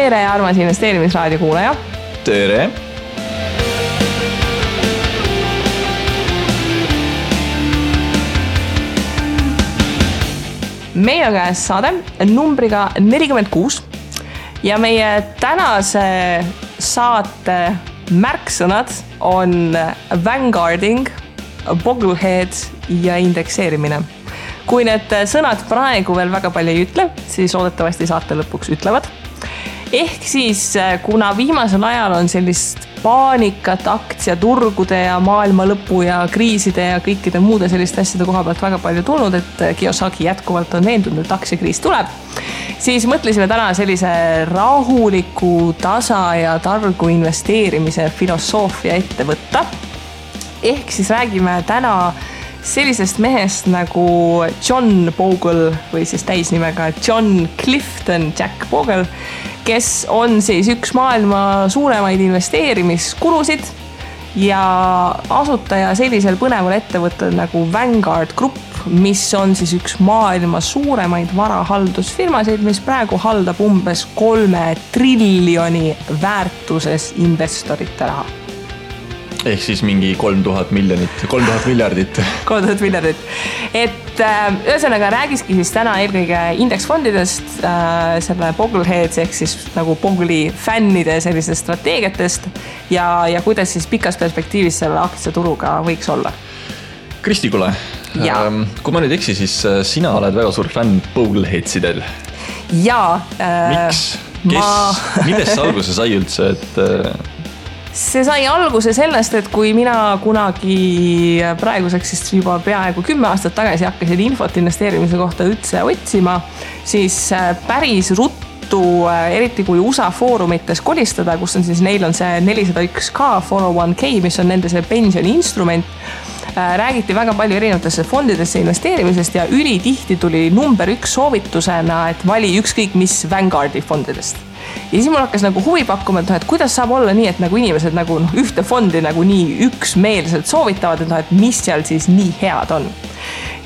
Tere, armas investeerimisraadio kuulaja. Tere. Meil on käes saade numbriga 46 ja meie tänase saate märksõnad on vanguarding, bogglehead ja indekseerimine. Kui need sõnad praegu veel väga palju ei ütle, siis loodetavasti saate lõpuks ütlevad. Ehk siis, kuna viimasel ajal on sellist paanikat aktsiaturgude ja maailma lõpu ja kriiside ja kõikide muude selliste asjade koha pealt väga palju tulnud, et Kiyosaki jätkuvalt on veendunud, et aktsiakriis tuleb, siis mõtlesime täna sellise rahuliku, tasa ja targu investeerimise filosoofia ette võtta. Ehk siis räägime täna sellisest mehest nagu John Bogle või siis täisnimega John Clifton Jack Bogle, kes on siis üks maailma suuremaid investeerimiskulusid ja asutaja sellisel põneval ettevõttel nagu Vanguard Group, mis on siis üks maailma suuremaid varahaldusfirmasid, mis praegu haldab umbes 3 triljoni väärtuses investorite raha. Ehk siis mingi 3000 miljardit. 3000 miljardit. Et ühesõnaga räägiski siis täna eelkõige indeksfondidest, selle Boggleheads ehk siis nagu Bogle'i fännide sellistest strateegiatest ja kuidas siis pikas perspektiivis selle aktsiaturuga võiks olla. Kristi, kuule, kui ma nüüd eksi, siis sina oled väga suur fänn Boggleheadsidel. Jaa. Miks? Millest alguse sai üldse, et... See sai alguse sellest, et kui mina kunagi praeguseks siis juba peaaegu 10 aastat tagasi hakkasin infot investeerimise kohta üldse otsima, siis päris ruttu, eriti kui USA foorumites kolistada, kus on siis neil on see 401k 401k, mis on nende see pensioniinstrument, räägiti väga palju erinevatesse fondidesse investeerimisest ja ülitihti tuli number 1 soovitusena, et vali ükskõik mis Vanguardi fondidest. Ja siis mul hakkas nagu huvi pakkuma, et kuidas saab olla nii, et nagu inimesed nagu ühte fondi nagu nii üksmeelselt soovitavad, et mis seal siis nii head on.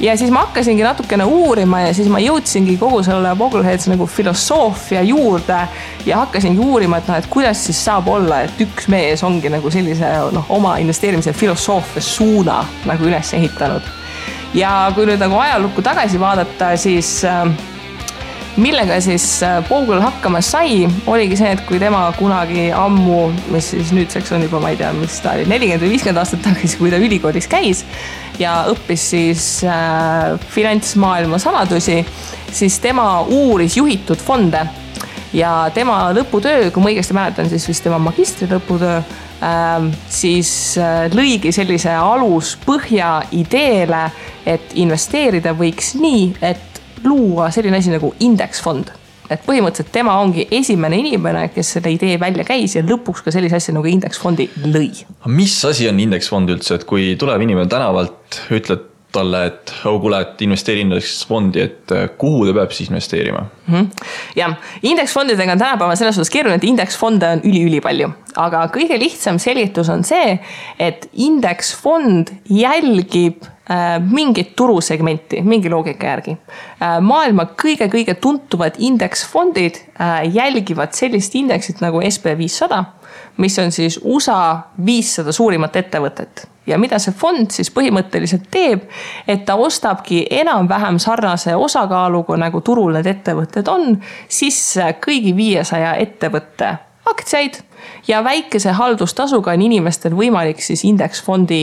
Ja siis ma hakkasingi natukene uurima ja siis ma jõudsingi kogu selle Boggleheads nagu filosoofia juurde ja hakkasingi uurima, et kuidas siis saab olla, et üks mees ongi nagu sellise oma investeerimise filosoofia suuna nagu üles ehitanud. Ja kui nüüd nagu ajalukku tagasi vaadata, siis... millega siis Bogle hakkama sai, oligi see, et kui tema kunagi ammu, mis siis nüüdseks on juba, ma ei tea, mis ta oli, 40 või 50 aastat tagasi, kui ta ülikoolis käis ja õppis siis finantsmaailma saladusi, siis tema uuris juhitud fonde ja tema lõputöö, kui ma õigesti mäletan, siis vist tema magistri lõputöö, siis lõigi sellise aluspõhja ideele, et investeerida võiks nii, et luua selline asi nagu indeksfond. Et põhimõtteliselt tema ongi esimene inimene, kes selle idee välja käis ja lõpuks ka sellise asja nagu indeksfondi lõi. Mis asi on indeksfond üldse, et kui tuleb inimene tänavalt, ütled talle, et kuule, et investeeri indeksfondi, et kuhu ta peab siis investeerima? Ja, indeksfondidega on tänapäeval selles suhtes keeruline, et indeksfonde on üli palju. Aga kõige lihtsam selitus on see, et indeksfond jälgib mingit turusegmenti, mingi loogika järgi. Maailma kõige tuntuvad indeksfondid jälgivad sellist indeksit nagu SP500, mis on siis USA 500 suurimat ettevõtet. Ja mida see fond siis põhimõtteliselt teeb, et ta ostabki enam-vähem sarnase osakaaluga nagu turul need ettevõtted on, siis kõigi 500 ettevõtte aktsiaid ja väikese haldustasuga on inimestel võimalik siis indeksfondi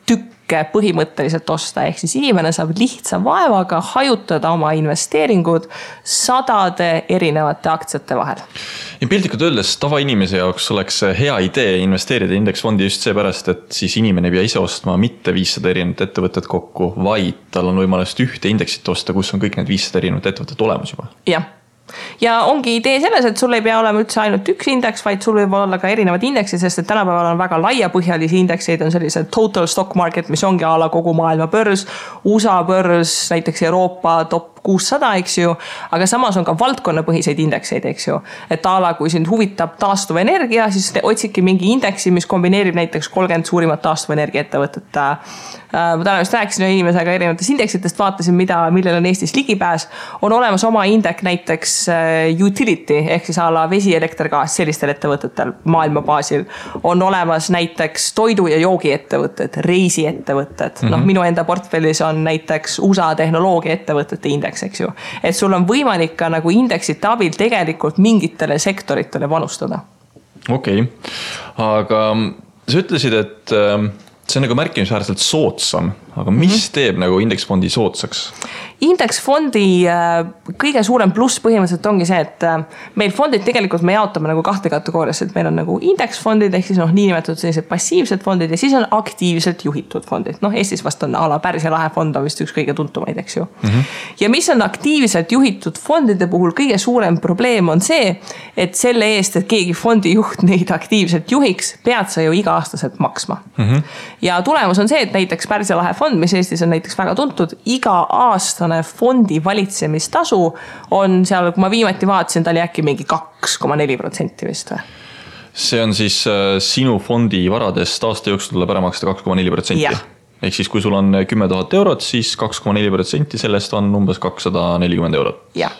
tükke põhimõtteliselt osta. Ehk siis inimene saab lihtsa vaevaga hajutada oma investeeringud 100 erinevate aktsiate vahel. Ja piltlikult öeldes tavainimese jaoks oleks hea idee investeerida indeksfondi just seepärast, et siis inimene ei pea ise ostma mitte 500 erinevat ettevõtet kokku, vaid tal on võimalust ühte indeksit osta, kus on kõik need 500 erinevat ettevõtet olemas juba. Jah. Ja ongi idee selles, et sul ei pea olema üldse ainult üks indeks, vaid sul võib olla ka erinevad indeksid, sest et tänapäeval on väga laiapõhjalisi indekseid, on sellised total stock market, mis ongi ala kogu maailma börs, USA börs, näiteks Euroopa top 600, eks ju, aga samas on ka valdkonnapõhiseid indekseid, eks ju. Et ala, kui sind huvitab taastuvenergia, siis otsidki mingi indeksi, mis kombineerib näiteks 30 suurimat taastuvenergia ettevõtet. Ma täna just rääkisin inimesega erinevatest indeksitest, vaatasin, millel on Eestis ligipääs. On olemas oma indek näiteks utility, ehk siis ala vesi, elekter, gaas sellistel ettevõtetel maailma baasil. On olemas näiteks toidu- ja joogiettevõtted, reisiettevõtted. Noh, minu enda portfellis on näiteks USA tehnoloogia ettevõtete indeks, eks ju. Et sul on võimalik ka nagu indeksite abil tegelikult mingitele sektoritele panustada. Okei. Aga sa ütlesid, et see on nagu märkimisväärselt soodsam, aga mis teeb nagu indeksfondi soodsaks? Indeksfondi kõige suurem pluss põhimõtteliselt ongi see, et meil fondid tegelikult me jaotame nagu kahte kategooriasse, et meil on nagu indeksfondid ehk siis niinimetatud sellised passiivsed fondid ja siis on aktiivselt juhitud fondid. Eestis vast on ala Pärsia lahe fond on vist üks kõige tuntumaid, eks ju. Ja mis on aktiivselt juhitud fondide puhul kõige suurem probleem on see, et selle eest, et keegi fondijuht neid aktiivselt juhiks, pead sa ju iga-aastaselt maksma. Ja tulemus on see, et näiteks Pärsia lahe fond, mis Eestis on näiteks väga tuntud, iga-aastane fondi valitsemistasu on seal, kui ma viimati vaatasin, ta oli äkki mingi 2,4% vist või? See on siis sinu fondi varadest aasta jooksul tuleb ära maksta 2,4%. Ehk siis kui sul on 10 000 eurot, siis 2,4% sellest on umbes 240 eurot. Jah.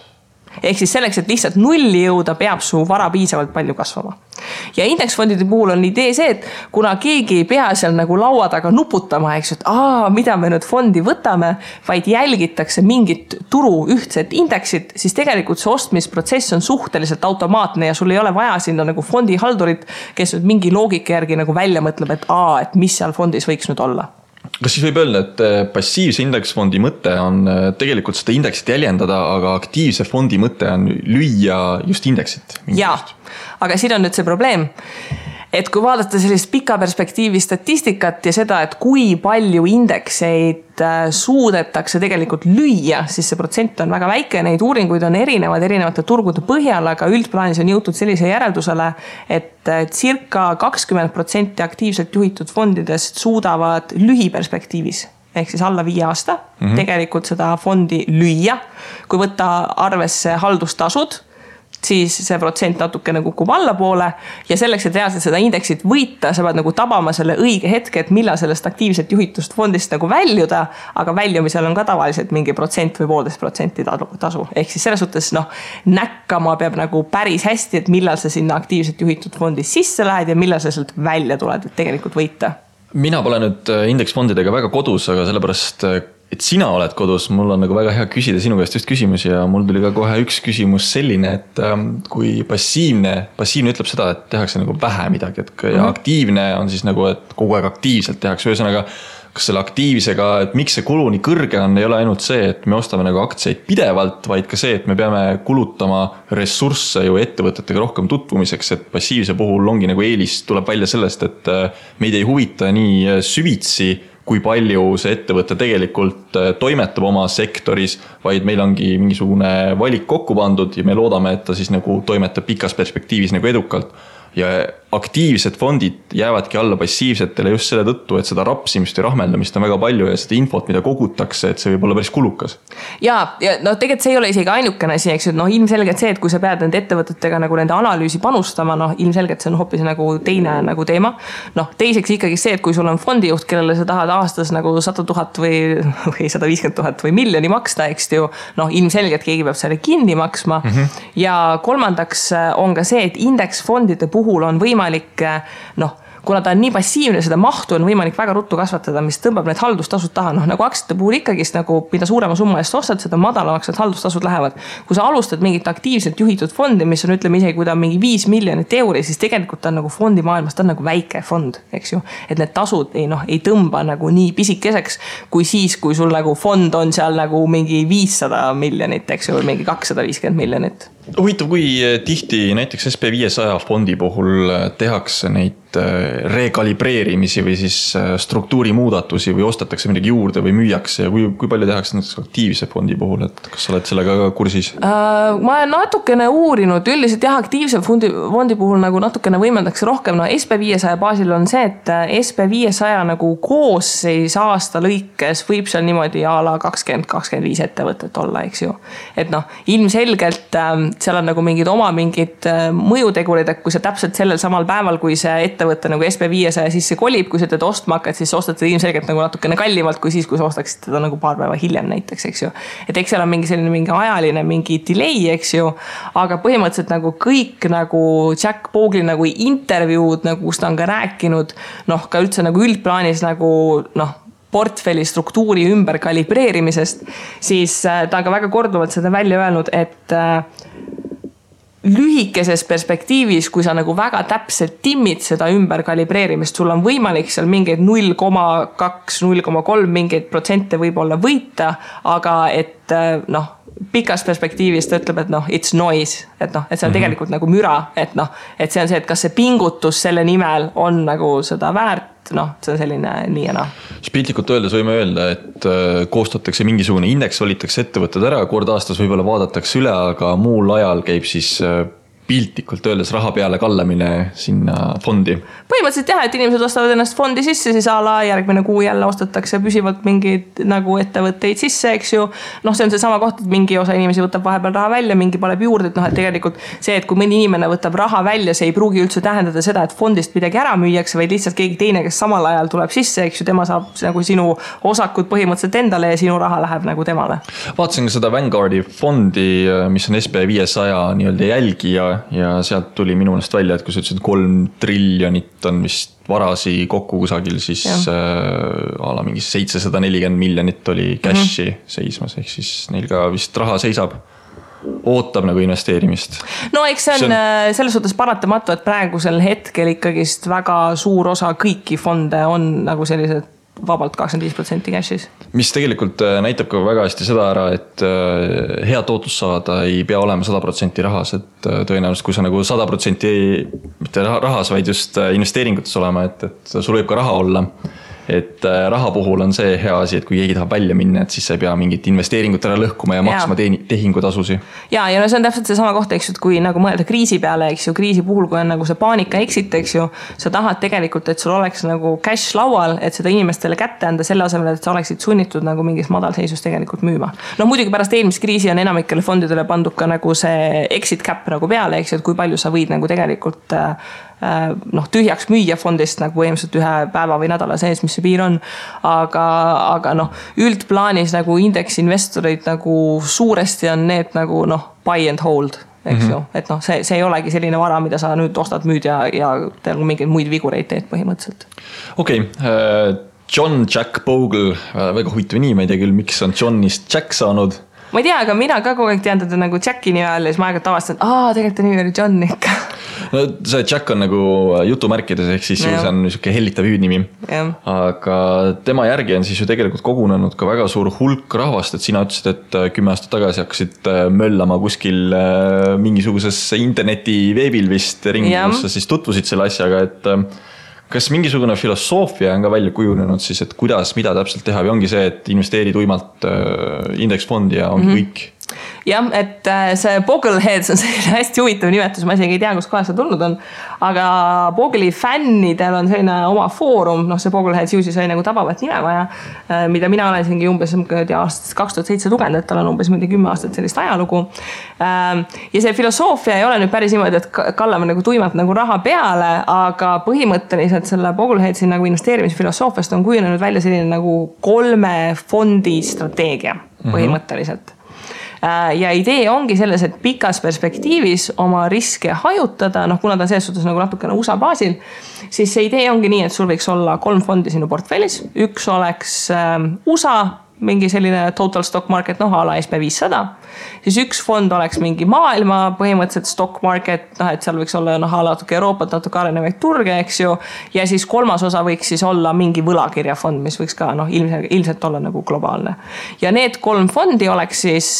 Ehk siis selleks, et lihtsalt nulli jõuda, peab su vara piisavalt palju kasvama. Ja indeksfondide puhul on idee see, et kuna keegi ei pea seal nagu laua taga nuputama, eks, et mida me nüüd fondi võtame, vaid jälgitakse mingit turu ühtset indeksit, siis tegelikult see ostmisprotsess on suhteliselt automaatne ja sul ei ole vaja sinna nagu fondihaldurit, kes nüüd mingi loogika järgi nagu välja mõtleb, et mis seal fondis võiks nüüd olla. Kas siis võib öelda, et passiivse indeksfondi mõte on tegelikult seda indeksit jäljendada, aga aktiivse fondi mõte on lüüa just indeksit? Jaa, aga siin on nüüd see probleem, et kui vaadata sellist pika perspektiivi statistikat ja seda, et kui palju indekseid suudetakse tegelikult lüüa, siis see protsent on väga väike, neid uuringuid on erinevate turgude põhjal, aga üldplaanis on jõutud sellise järeldusele, et circa 20% aktiivselt juhitud fondidest suudavad lühiperspektiivis ehk siis alla 5 aasta tegelikult seda fondi lüüa. Kui võtta arvesse haldustasud, siis see protsent natukene kukub allapoole ja selleks, et reaalselt seda indeksit võita, sa pead nagu tabama selle õige hetke, et millal sellest aktiivselt juhitust fondist nagu väljuda, aga väljumisel on ka tavaliselt mingi protsent või 1,5% tasu. Ehk siis selles suhtes näkkama peab nagu päris hästi, et millal sa sinna aktiivselt juhitud fondis sisse lähed ja millal sa sealt välja tuled, et tegelikult võita. Mina pole nüüd indeksfondidega väga kodus, aga sellepärast et sina oled kodus, mul on nagu väga hea küsida sinu käest just küsimusi ja mul tuli ka kohe üks küsimus selline, et kui passiivne ütleb seda, et tehakse nagu vähe midagi, ja aktiivne on siis nagu, et kogu aeg aktiivselt tehakse, ühesõnaga, kas selle aktiivsega, et miks see kulu nii kõrge on, ei ole ainult see, et me ostame nagu aktsiaid pidevalt, vaid ka see, et me peame kulutama ressursse ju ettevõtetega rohkem tutvumiseks, et passiivse puhul ongi nagu eelis tuleb välja sellest, et meid ei huvita nii süvitsi, kui palju see ettevõte tegelikult toimetab oma sektoris, vaid meil ongi mingisugune valik kokku pandud ja me loodame, et ta siis nagu toimetab pikas perspektiivis nagu edukalt. Ja aktiivsed fondid jäävadki alla passiivsetele just selle tõttu, et seda rapsimist ja rahmeldamist on väga palju ja seda infot, mida kogutakse, et see võib olla päris kulukas. Ja tegelikult see ei ole isegi ainukene asi, eks, ilmselgelt see, et kui sa pead nende ettevõtetega nagu nende analüüsi panustama, ilmselgelt see on hoopis nagu teine nagu teema. Teiseks ikkagi see, et kui sul on fondijuht, kellele sa tahad aastas nagu 100 000 või 150 000 või miljoni maksta, eks ju, ilmselgelt keegi peab selle kinni maksma. Ja kolmandaks on ka see, et indeksfondide puhul on võimalik, kuna ta on nii passiivne, seda mahtu on võimalik väga ruttu kasvatada, mis tõmbab need haldustasud taha. Nagu aktsiate puhul ikkagist, nagu mida suurema summa eest ostad, seda madalamaks need haldustasud lähevad. Kui sa alustad mingit aktiivselt juhitud fondi, mis on, ütleme isegi, kui ta on mingi 5 miljonit euri, siis tegelikult ta on nagu fondi maailmas, ta on nagu väike fond, eks ju. Et need tasud ei tõmba nagu nii pisikeseks, kui siis, kui sul nagu fond on seal nagu mingi 500 miljonit, eks ju, või mingi 250 miljonit. Huvitav, kui tihti näiteks SP500 fondi puhul tehakse neid rekalibreerimisi või siis struktuuri muudatusi või ostetakse midagi juurde või müüakse ja kui palju tehakse näiteks aktiivse fondi puhul, et kas sa oled sellega ka kursis? Ma olen natukene uurinud, üldiselt jah, aktiivse fondi puhul nagu natukene võimendatakse rohkem. No SP500 baasil on see, et SP500 nagu koosseis aasta lõikes võib seal niimoodi a la 20-25 ettevõtet olla, eks ju. Et noh, ilmselgelt seal on nagu mingid mõjutegurid, et kui sa täpselt sellel samal päeval, kui see ettevõtte nagu SP500 sisse kolib, kui sa teda ostma hakkad, siis ostad seda ilmselgelt nagu natukene kallimalt kui siis, kui sa ostaksid teda nagu paar päeva hiljem näiteks, eks ju. Et eks seal on mingi ajaline, mingi delay, eks ju, aga põhimõtteliselt nagu kõik nagu Jack Bogle nagu intervjuud, nagu kus ta on ka rääkinud, noh, ka üldse nagu üldplaanis nagu noh, portfelli struktuuri ümber kalibreerimisest, siis ta on ka väga korduvalt seda välja öelnud, et lühikeses perspektiivis, kui sa nagu väga täpselt timmid seda ümberkalibreerimist, sul on võimalik seal mingeid 0,2, 0,3 mingeid protsente võib-olla võita, aga et noh, pikas perspektiivis ta ütleb, et noh, it's noise, et noh, et see on tegelikult nagu müra, et noh, et see on see, et kas see pingutus selle nimel on nagu seda väärt, noh, see on selline nii ja noh. Piltlikult öeldes võime öelda, et koostatakse mingisugune indeks, valitakse ettevõtted ära, kord aastas võib-olla vaadatakse üle, aga muul ajal käib siis piltlikult öeldes raha peale kallamine sinna fondi. Põhimõtteliselt jah, et inimesed ostavad ennast fondi sisse, siis a la järgmine kuu jälle ostetakse püsivalt mingeid nagu ettevõtteid sisse, eks ju. Noh, see on see sama koht, et mingi osa inimesi võtab vahepeal raha välja, mingi paneb juurde, et noh, et tegelikult see, et kui mõni inimene võtab raha välja, see ei pruugi üldse tähendada seda, et fondist midagi ära müüakse, vaid lihtsalt keegi teine, kes samal ajal tuleb sisse, eks ju, tema saab nagu sinu osakud põhimõtteliselt endale ja sinu raha läheb nagu temale. Vaatasin ka seda Vanguardi fondi, mis on SP500 nii-öelda jälgija ja sealt tuli minu meelest välja, et kui sa ütlesid 3 triljonit on vist varasi kokku kusagil, siis ala mingi 740 miljonit oli cashi seismas, ehk siis neil ka vist raha seisab, ootab nagu investeerimist. No eks see on selles suhtes paratamatu, et praegusel hetkel ikkagist väga suur osa kõiki fonde on nagu sellised vabalt 25% cash'is. Mis tegelikult näitab ka väga hästi seda ära, et hea tootlus saada ei pea olema 100% rahas, et tõenäoliselt kui sa nagu 100% mitte rahas, vaid just investeeringutes olema, et sul võib ka raha olla. Et raha puhul on see hea asi, et kui keegi tahab välja minna, et siis sa ei pea mingit investeeringut ära lõhkuma ja maksma tehingutasusi. Ja no see on täpselt see sama koht, eks ju, et kui nagu mõelda kriisi peale, eks ju, kriisi puhul, kui on nagu see paanika exit, eks ju, sa tahad tegelikult, et sul oleks nagu cash laual, et seda inimestele kätte anda selle asemel, et sa oleksid sunnitud nagu mingis madalseisus tegelikult müüma. No muidugi pärast eelmist kriisi on enamikele fondidele pandud ka nagu see exit cap nagu peale, eks ju, et kui palju sa võid nagu tegelikult noh, tühjaks müüa fondist nagu põhimõtteliselt ühe päeva või nädala sees, mis see piir on. Aga noh, üldplaanis nagu indeksinvestorid nagu suuresti on need nagu noh, buy and hold, eks ju. Et noh, see ei olegi selline vara, mida sa nüüd ostad, müüd ja tead mingeid muid vigureid teed põhimõtteliselt. Okei. John Jack Bogle, väga huvitav nii, ma ei tea küll, miks on Johnist Jack saanud. Ma ei tea, aga mina ka kogu aeg tean teda nagu Jacki nime all ja siis ma aega tavastan, tegelikult ta nimi oli John ikka. No see Jack on nagu jutumärkides, ehk siis see on niisugune hellitav hüüdnimi. Aga tema järgi on siis ju tegelikult kogunenud ka väga suur hulk rahvast, et sina ütlesid, et 10 aastat tagasi hakkasid möllama kuskil mingisuguses interneti veebil vist ringi, kus sa siis tutvusid selle asjaga, et kas mingisugune filosoofia on ka välja kujunenud siis, et kuidas, mida täpselt teha või ongi see, et investeeri tuimalt indeksfondi ja ongi kõik? Jah, et see Bogleheads on selline hästi huvitav nimetus, ma isegi ei tea, kus kohas see tulnud on, aga Bogle'i fännidel on selline oma foorum, noh see Bogleheads ju siis oli nagu tabavat nime vaja, mida mina olen siingi umbes aastast 2007 lugenud, et tal on umbes 10 aastat sellist ajalugu. Ja see filosoofia ei ole nüüd päris niimoodi, et kallame nagu tuimalt nagu raha peale, aga põhimõtteliselt selle Bogleheadsi nagu investeerimisfilosoofiast on kujunenud välja selline nagu 3 fondi strateegia põhimõtteliselt. Ja idee ongi selles, et pikas perspektiivis oma riske hajutada, noh kuna ta selles suhtes nagu natukene USA baasil, siis see idee ongi nii, et sul võiks olla 3 fondi sinu portfellis. Üks oleks USA, mingi selline total stock market, noh ala SP500. Siis üks fond oleks mingi maailma põhimõtteliselt stock market, noh et seal võiks olla natuke Euroopat, natuke arenevaid turge, eks ju. Ja siis 3. osa võiks siis olla mingi võlakirjafond, mis võiks ka ilmselt olla nagu globaalne. Ja need 3 fondi oleks siis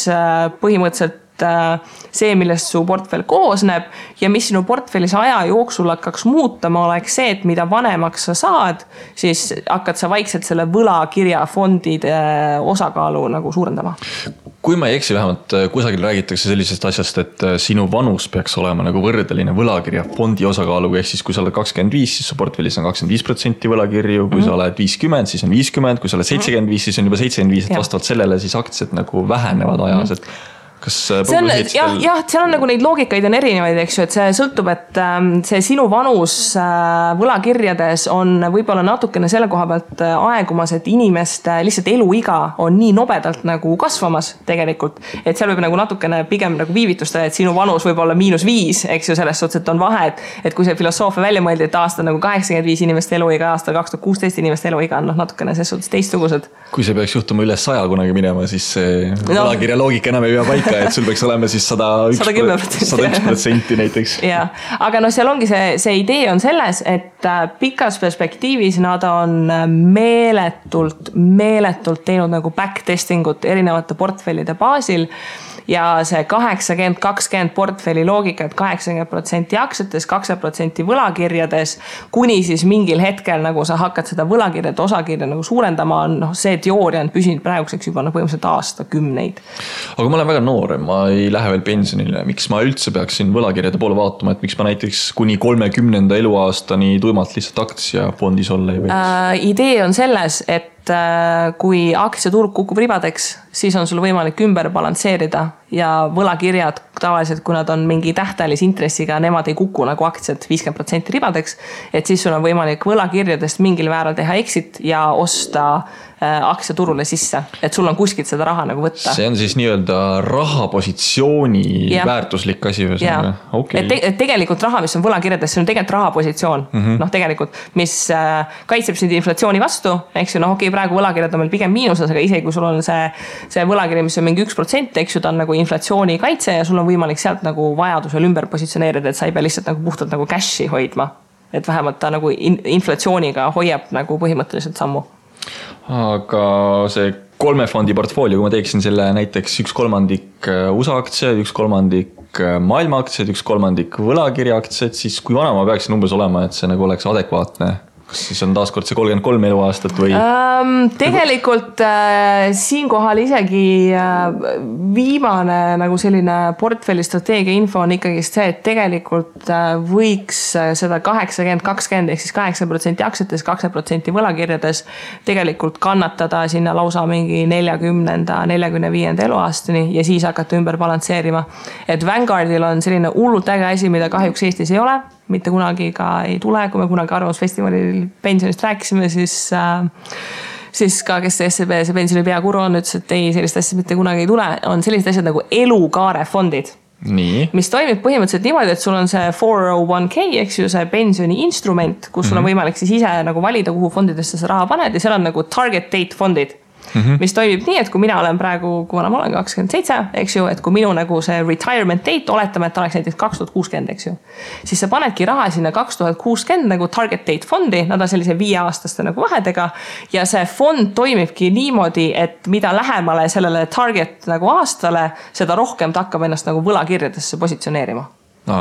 põhimõtteliselt see, millest su portfell koosneb ja mis sinu portfellis aja jooksul hakkaks muutama, oleks see, et mida vanemaks sa saad, siis hakkad sa vaikselt selle võlakirjafondide osakaalu nagu suurendama. Kui ma ei eksi, vähemalt kusagil räägitakse sellisest asjast, et sinu vanus peaks olema nagu võrdeline võlakirjafondi osakaaluga, ehk siis kui sa oled 25, siis su portfellis on 25% võlakirju, kui sa oled 50, siis on 50, kui sa oled 75, siis on juba 75, et vastavalt sellele siis aktsiad nagu vähenevad ajas, et kas see on, jah, seal on nagu neid loogikaid on erinevaid, eks ju, et see sõltub, et see sinu vanus võlakirjades on võib-olla natukene selle koha pealt aegumas, et inimeste lihtsalt eluiga on nii nobedalt nagu kasvamas tegelikult, et seal võib nagu natukene pigem nagu viivitustada, et sinu vanus võib olla -5, eks ju, selles suhtes, et on vahe, et kui see filosoofia välja mõeldi, et aasta nagu 85 inimeste eluiga, aasta 2016 inimeste eluiga on noh, natukene selles suhtes teistsugused. Kui see peaks juhtuma üle 100 kunagi minema, siis see võlakirja loogika enam ei pea paika, et sul peaks olema siis 101% näiteks. Ja, aga no seal ongi see idee on selles, et pikas perspektiivis nad on meeletult teinud nagu backtestingut erinevate portfellide baasil ja see 80-20 portfelli loogika, et 80% aktsiates, 20% võlakirjades, kuni siis mingil hetkel nagu sa hakkad seda võlakirjade osakirja nagu suurendama, on see teooria on püsinud praeguseks juba põhimõtteliselt aastakümneid. Aga ma olen väga noor, ma ei lähe veel pensionile. Miks ma üldse peaksin võlakirjade poole vaatama, et miks ma näiteks kuni 30. eluaastani tuimalt lihtsalt aktsiafondis olla ei võiks? Idee on selles, et kui aktsiaturg kukub ribadeks, siis on sul võimalik ümber balansseerida ja võlakirjad tavaliselt, kui nad on mingi tähtajalise intressiga, nemad ei kuku nagu aktsiad 50% ribadeks, et siis sul on võimalik võlakirjadest mingil määral teha exit ja osta aktsiaturule sisse, et sul on kuskilt seda raha nagu võtta. See on siis nii-öelda rahapositsiooni väärtuslik asi. Okay. Et tegelikult raha, mis on võlakirjades, see on tegelikult rahapositsioon, noh tegelikult, mis kaitseb sind inflatsiooni vastu, eks ju, noh okei, praegu võlakirjad on meil pigem miinuses, aga isegi kui sul on see võlakirja, mis on mingi 1%, eks ju, ta on nagu inflatsiooni kaitse ja sul on võimalik sealt nagu vajadusel ümber positsioneerida, et sa ei pea lihtsalt nagu puhtalt nagu cashi hoidma, et vähemalt ta nagu inflatsiooniga hoiab nagu põhimõtteliselt sammu. Aga see 3 fondi portfoolio, kui ma teeksin selle näiteks 1/3 USA aktsiad, 1/3 maailma aktsiad, 1/3 võlakirja aktsiad, siis kui vana ma peaksin umbes olema, et see nagu oleks adekvaatne? Kas siis on taaskord see 33 eluaastat või? Tegelikult siinkohal isegi viimane nagu selline portfelli strateegia info on ikkagi see, et tegelikult võiks seda 80-20 ehk siis 8% aktsiates, 2% võlakirjades tegelikult kannatada sinna lausa mingi 40-45 eluaastani ja siis hakata ümber balansseerima. Et Vanguardil on selline hullult äge asi, mida kahjuks Eestis ei ole, mitte kunagi ka ei tule, kui me kunagi Arvamusfestivalil pensionist rääkisime, siis ka, kes SEB see pensioni peakuru on, ütles, et ei, sellist asja mitte kunagi ei tule, on sellised asjad nagu elukaarefondid. Nii. Mis toimib põhimõtteliselt niimoodi, et sul on see 401k, eks ju, see pensioni instrument, kus sul on võimalik siis ise nagu valida, kuhu fondidesse sa raha paned ja seal on nagu target date fondid. Mis toimib nii, et kui mina olen praegu, kui ma olen 27, eks ju, et kui minu nagu see retirement date, oletame, et oleks näiteks 2060, eks ju, siis sa panedki raha sinna 2060 nagu target date fondi, nad on sellise 5-aastaste nagu vahedega ja see fond toimibki niimoodi, et mida lähemale sellele target nagu aastale, seda rohkem ta hakkab ennast nagu võlakirjadesse positsioneerima.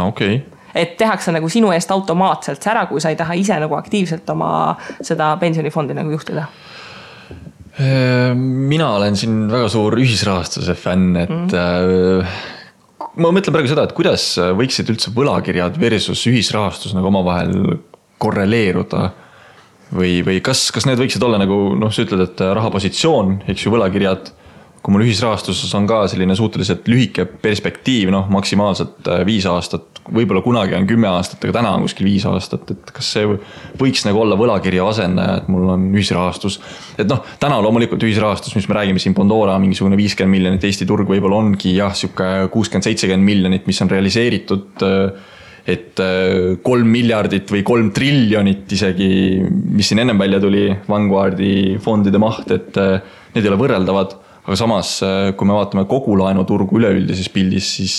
Okay. Et tehakse nagu sinu eest automaatselt ära, kui sa ei taha ise nagu aktiivselt oma seda pensionifondi nagu juhtida. Mina olen siin väga suur ühisrahastuse fänn, et ma mõtlen praegu seda, et kuidas võiksid üldse võlakirjad versus ühisrahastus nagu omavahel korreleeruda või kas need võiksid olla nagu, noh, sa ütled, et rahapositsioon, eks ju, võlakirjad, kui mul ühisrahastuses on ka selline suhteliselt lühike perspektiiv, noh, maksimaalselt 5 aastat, võib-olla kunagi on 10 aastat, aga täna on kuskil 5 aastat, et kas see võiks nagu olla võlakirja asendaja, et mul on ühisrahastus. Et noh, täna loomulikult ühisrahastus, mis me räägime siin Pandora, mingisugune 50 miljonit, Eesti turg võib-olla ongi jah, siuke 60-70 miljonit, mis on realiseeritud, et 3 miljardit või 3 triljonit isegi, mis siin ennem välja tuli, Vanguardi fondide maht, et need ei ole võrreldavad. Aga samas, kui me vaatame kogu laenuturgu üleüldises pildis, siis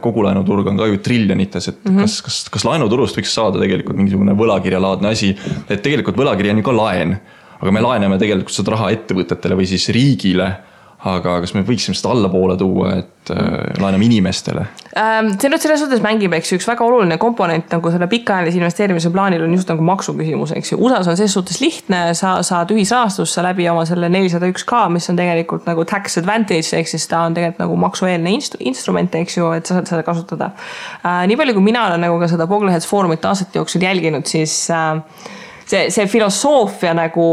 kogu laenuturg on ka ju triljonites, et kas laenuturust võiks saada tegelikult mingisugune võlakirjalaadne asi, et tegelikult võlakirja on ju ka laen, aga me laename tegelikult seda raha ettevõtetele või siis riigile, aga kas me võiksime seda allapoole tuua, et laename inimestele? See nüüd selles suhtes mängib, eks üks väga oluline komponent nagu selle pikaajalise investeerimise plaanil on just nagu maksuküsimus, eks ju. USAs on selles suhtes lihtne, sa saad ühisrahastusse läbi oma selle 401K, mis on tegelikult nagu tax advantage, ehk siis ta on tegelikult nagu maksueelne instrument, eks ju, et sa saad seda kasutada. Nii palju, kui mina olen nagu ka seda Bogleheads foorumit aastate jooksul jälginud, siis see filosoofia nagu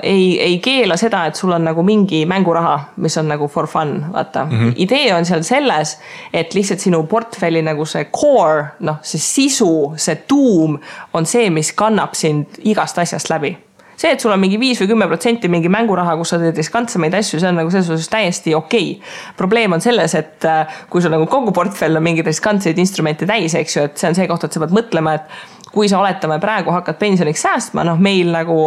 ei keela seda, et sul on nagu mingi mänguraha, mis on nagu for fun, vaata. Idee on seal selles, et lihtsalt sinu portfelli nagu see core, see sisu, see tuum on see, mis kannab sind igast asjast läbi. See, et sul on mingi 5 või 10% mingi mänguraha, kus sa teed riskantsemaid asju, see on nagu selles suhtes täiesti okei. Probleem on selles, et kui sul nagu kogu portfell on mingi riskantseid instrumente täis, eks ju, et see on see koht, et sa pead mõtlema, et kui sa oletame praegu hakkad pensioniks säästma, meil nagu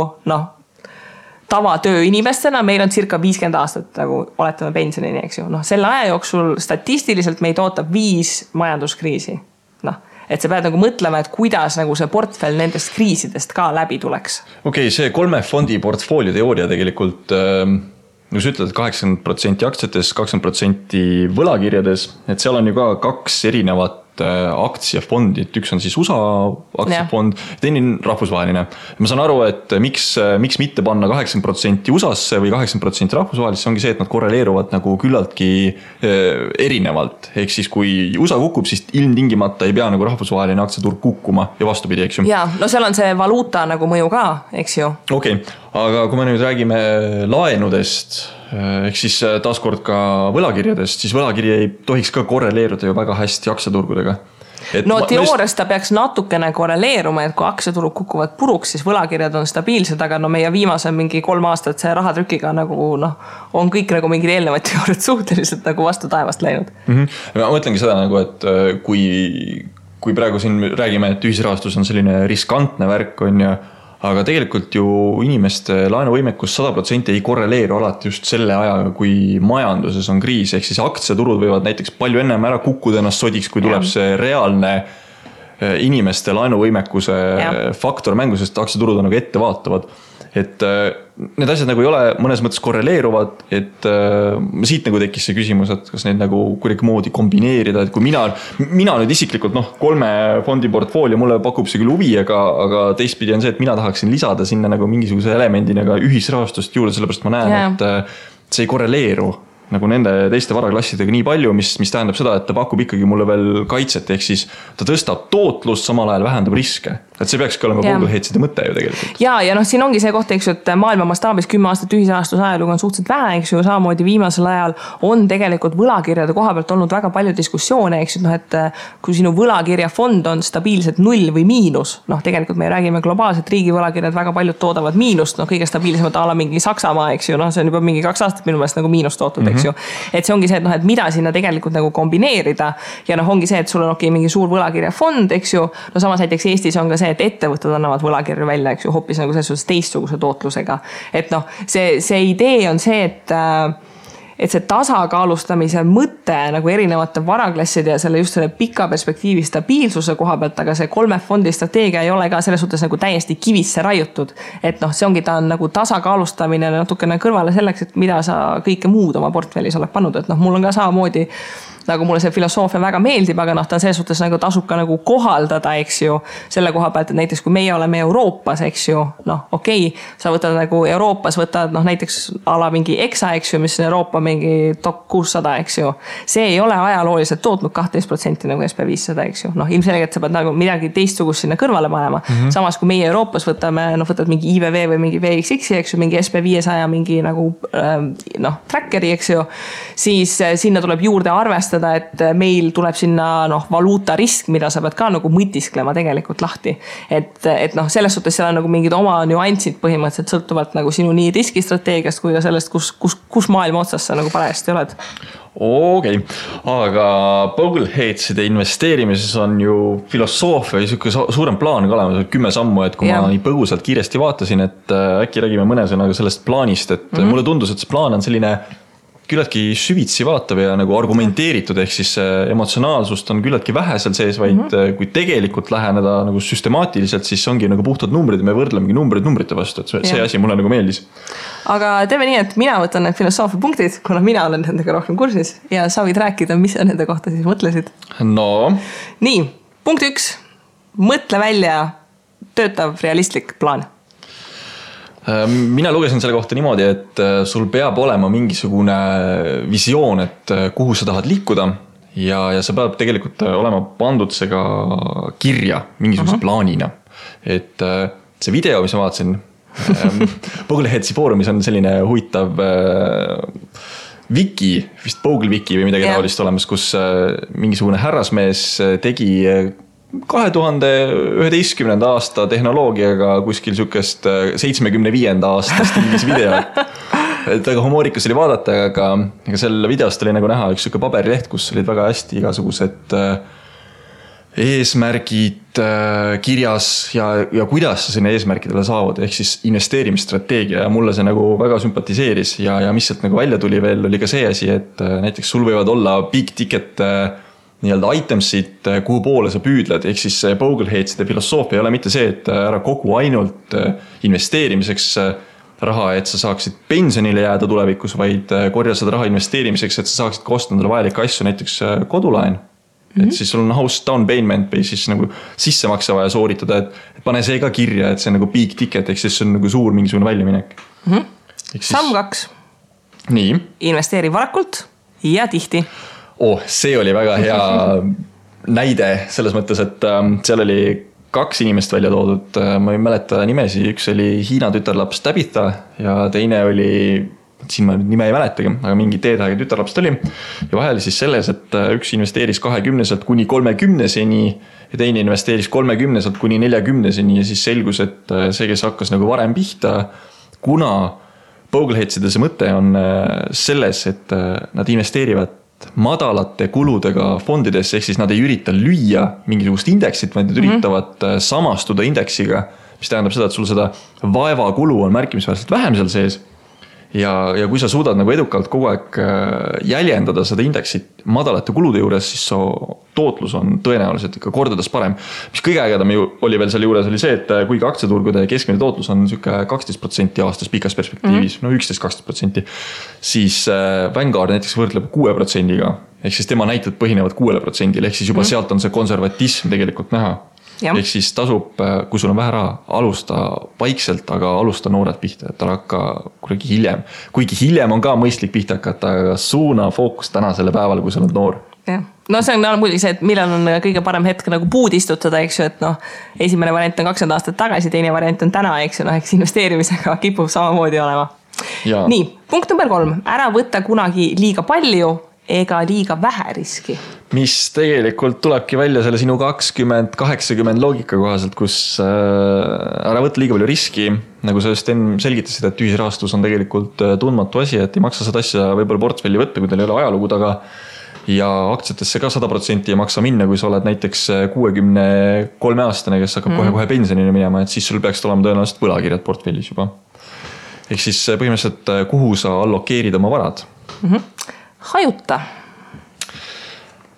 tavatöö inimestena, meil on circa 50 aastat nagu oletame pensionini, eks ju. Selle aja jooksul statistiliselt meid ootab 5 majanduskriisi. Et sa pead nagu mõtlema, et kuidas nagu see portfell nendest kriisidest ka läbi tuleks. Okei, see 3 fondi portfoolio teooria tegelikult, nagu sa ütled, 80% aktsiates, 20% võlakirjades, et seal on ju ka 2 erinevat aktsiafondi, et üks on siis USA aktsiafond, teine on rahvusvaheline. Ma saan aru, et miks mitte panna 80% USA-sse või 80% rahvusvahelisse, ongi see, et nad korreleeruvad nagu küllaltki erinevalt. Ehk siis kui USA kukub, siis ilmtingimata ei pea nagu rahvusvaheline aktsiaturg kukkuma ja vastupidi, eks ju. Ja, seal on see valuuta nagu mõju ka, eks ju. Okei, aga kui me nüüd räägime laenudest, ehk siis taaskord ka võlakirjadest, siis võlakiri ei tohiks ka korreleeruda ju väga hästi aktsiaturgudega. Teoorias ta peaks natukene korreleeruma, et kui aktsiaturud kukuvad puruks, siis võlakirjad on stabiilsed, aga meie viimase mingi 3 aastat see rahatrükiga nagu on kõik nagu mingid eelnevad teooriad suhteliselt nagu vastu taevast läinud. Ma mõtlengi seda nagu, et kui praegu siin räägime, et ühisrahastus on selline riskantne värk on ja aga tegelikult ju inimeste laenuvõimekus 100% ei korreleeru alati just selle ajaga, kui majanduses on kriis, ehk siis aktsiaturud võivad näiteks palju ennem ära kukkuda ennast sodiks, kui tuleb see reaalne inimeste laenuvõimekuse faktor mängu, sest aktsiaturud on nagu ettevaatavad. Et need asjad nagu ei ole mõnes mõttes korreleeruvad, et siit nagu tekkis see küsimus, et kas neid nagu kuidagi moodi kombineerida, et kui mina nüüd isiklikult 3 fondi portfoolio mulle pakub see küll huvi, aga teistpidi on see, et mina tahaksin lisada sinna nagu mingisuguse elemendina ka ühisrahastust juurde, sellepärast ma näen, et see ei korreleeru nagu nende teiste varaklassidega nii palju, mis tähendab seda, et ta pakub ikkagi mulle veel kaitset, ehk siis ta tõstab tootlust, samal ajal vähendab riske. Et see peakski olema Bogleheadside mõte ju tegelikult. Ja siin ongi see koht, eks ju, et maailma mastaabis 10 aastat ühisrahastuse ajalugu on suhteliselt vähe, eks ju, samamoodi viimasel ajal on tegelikult võlakirjade koha pealt olnud väga palju diskussioone, eks ju, et kui sinu võlakirjafond on stabiilselt 0 või miinus, tegelikult me räägime globaalselt riigi võlakirjad, väga paljud toodavad miinust, kõige stabiilsemad ala mingi Saksamaa, eks ju, see on juba mingi 2 aastat minu meelest nagu miinust tootud, eks ju. Et see ongi see, et mida sinna tegelikult nagu kombineerida ja ongi see, et sul on mingi suur võlakirjafond, eks ju, samas näiteks Eestis on ka see, et ettevõtted annavad võlakirju välja, eks ju, hoopis nagu selles teistsuguse tootlusega. Et see idee on see, et see tasakaalustamise mõte nagu erinevate varaklasside ja just selle pika perspektiivi stabiilsuse koha pealt, aga see 3 fondi strateegia ei ole ka selles suhtes nagu täiesti kivisse raiutud. Et see ongi, ta on nagu tasakaalustamine natukene kõrvale selleks, et mida sa kõike muud oma portfellis oled pannud. Et mul on ka samamoodi nagu mulle see filosoofia väga meeldib, aga ta selles suhtes nagu tasub ka nagu kohaldada, eks ju, selle koha pealt, et näiteks kui meie oleme Euroopas, eks ju, okei, sa võtad nagu Euroopas, võtad näiteks ala mingi EXA, eks ju, mis on Euroopa mingi top 600, eks ju. See ei ole ajalooliselt tootnud 12% nagu SP500, eks ju. Ilmselgelt sa pead nagu midagi teistsugust sinna kõrvale panema. Samas kui meie Euroopas võtad mingi IVV või mingi VXX, eks ju, mingi SP500 mingi nagu trackeri, eks ju, siis sinna tuleb juurde arvestada, et meil tuleb sinna valuuta risk, mida sa pead ka nagu mõtisklema tegelikult lahti. Et selles suhtes seal on nagu mingid oma nüansid põhimõtteliselt sõltuvalt nagu sinu nii riskistrateegiast kui ka sellest, kus maailma otsas sa nagu parajasti oled. Okei, aga Bogleheadside investeerimises on ju filosoofia ja suurem plaan ka olemas, 10 sammu, et kui ma nii põgusalt kiiresti vaatasin, et äkki räägime mõne sõnaga sellest plaanist, et mulle tundus, et see plaan on selline küllaltki süvitsi vaatav ja nagu argumenteeritud, ehk siis emotsionaalsust on küllaltki vähe seal sees, vaid kui tegelikult läheneda nagu süstemaatiliselt, siis ongi nagu puhtad numbrid ja me võrdlemegi numbrite vastu, et see asi mulle nagu meeldis. aga teeme nii, et mina võtan need filosoofia punktid, kuna mina olen nendega rohkem kursis ja sa võid rääkida, mis sa nende kohta siis mõtlesid. No. Nii, punkt 1. Mõtle välja töötav realistlik plaan. Mina lugesin selle kohta niimoodi, et sul peab olema mingisugune visioon, et kuhu sa tahad liikuda ja sa peab tegelikult olema pandud see ka kirja mingisuguse plaanina. Et see video, mis ma vaatasin, Bogleheadsi foorumis on selline huvitav wiki, vist Bogle wiki või midagi taolist olemas, kus mingisugune härrasmees tegi 2011. aasta tehnoloogiaga kuskil sükest 75. aasta stiilis video. Et väga humoorikas oli vaadata, aga selle videost oli nagu näha üks süke paberileht, kus olid väga hästi igasugused eesmärgid kirjas ja kuidas sa sinna eesmärkidele saavad, ehk siis investeerimisstrateegia ja mulle see nagu väga sümpatiseeris ja mis sealt nagu välja tuli veel, oli ka see asi, et näiteks sul võivad olla big ticket nii-öelda itemsid, kuhu poole sa püüdled, ehk siis Bogleheadside filosoofia ei ole mitte see, et ära kogu ainult investeerimiseks raha, et sa saaksid pensionile jääda tulevikus, vaid korja seda raha investeerimiseks, et sa saaksid ka osta endale vajalikke asju, näiteks kodulaen. Et siis sul on house down payment või siis nagu sissemakse vaja sooritada, et pane see ka kirja, et see on nagu big ticket, ehk siis see on nagu suur mingisugune väljaminek. Samm 2. Nii. Investeeri varakult ja tihti. See oli väga hea näide selles mõttes, et seal oli 2 inimest välja toodud, ma ei mäleta nimesi, üks oli Hiina tütarlaps Tabitha ja teine oli, siin ma nime ei mäletagi, aga mingi teedhaige tütarlaps oli ja vahel siis selles, et üks investeeris 20 kuni 30-seni ja teine investeeris 30 kuni 40-seni ja siis selgus, et see, kes hakkas nagu varem pihta, kuna Bogleheadside see mõte on selles, et nad investeerivad madalate kuludega fondidesse, ehk siis nad ei ürita lüüa mingisugust indeksit, vaid nad üritavad samastuda indeksiga, mis tähendab seda, et sul seda vaevakulu on märkimisväärselt vähem seal sees. Ja kui sa suudad nagu edukalt kogu aeg jäljendada seda indeksit madalate kulude juures, siis tootlus on tõenäoliselt ikka kordades parem. Mis kõige ägedam oli veel selle juures oli see, et kuigi aktsiaturgude keskmine tootlus on 12% aastas pikas perspektiivis, no 11-12%, siis Vanguard näiteks võrdleb 6%-ga, ehk siis tema näited põhinevad 6%-l, ehk siis juba sealt on see konservatism tegelikult näha. Ehk siis tasub, kui sul on vähe raha, alusta vaikselt, aga alusta noored pihta, et hakka kuidagi hiljem. Kuigi hiljem on ka mõistlik pihta hakata, aga suuna fookus täna selle päeval, kui sa oled noor. Ja. No see on muidugi see, et millal on kõige parem hetk nagu puud istutada, eks ju, et esimene variant on 20 aastat tagasi, teine variant on täna, eks ju, eks investeerimisega kipub samamoodi olema. Ja. Nii, punkt number 3. Ära võtta kunagi liiga palju ega liiga vähe riski. Mis tegelikult tulebki välja selle sinu 20-80 loogika kohaselt, kus ära võtta liiga palju riski, nagu sa just enne selgitasid, et ühisrahastus on tegelikult tundmatu asi, et ei maksa seda asja võib-olla portfelli võtta, kui teil ei ole ajalugu taga ja aktsiatesse ka 100% ei maksa minna, kui sa oled näiteks 63-aastane, kes hakkab kohe pensionile minema, et siis sul peaks olema tõenäoliselt võlakirjad portfellis juba. Ehk siis põhimõtteliselt, kuhu sa allokeerid oma varad?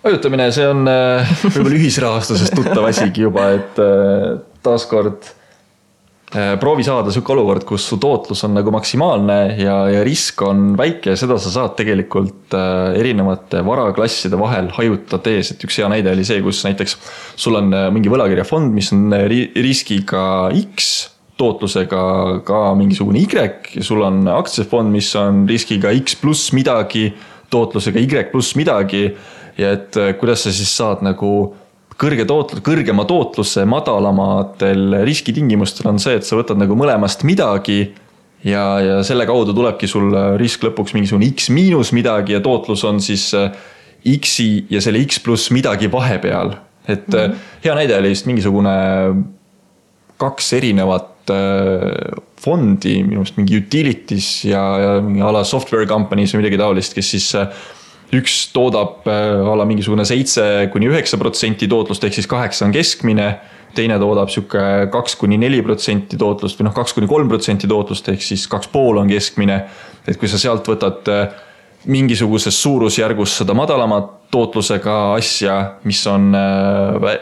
Hajutamine, see on võib-olla ühisrahastusest tuttav asigi juba, et taaskord proovi saada sükke olukord, kus su tootlus on nagu maksimaalne ja risk on väike ja seda sa saad tegelikult erinevate varaklasside vahel hajutades, et üks hea näide oli see, kus näiteks sul on mingi võlakirjafond, mis on riskiga X, tootlusega ka mingisugune Y ja sul on aktsiafond, mis on riskiga X pluss midagi, tootlusega Y pluss midagi ja et kuidas sa siis saad nagu kõrgema tootluse madalamatel riskitingimustel on see, et sa võtad nagu mõlemast midagi ja selle kaudu tulebki sul risk lõpuks mingisugune X miinus midagi ja tootlus on siis X-i ja selle X pluss midagi vahepeal. Et hea näide oli just mingisugune 2 erinevat fondi, minust mingi utilities ja mingi ala software companies või midagi taolist, kes siis üks toodab ala mingisugune 7-9% tootlust, ehk siis 8 on keskmine, teine toodab süke 2-4% tootlust või 2-3% tootlust, ehk siis 2,5 on keskmine. Et kui sa sealt võtad mingisuguses suurusjärgus seda madalama tootlusega asja, mis on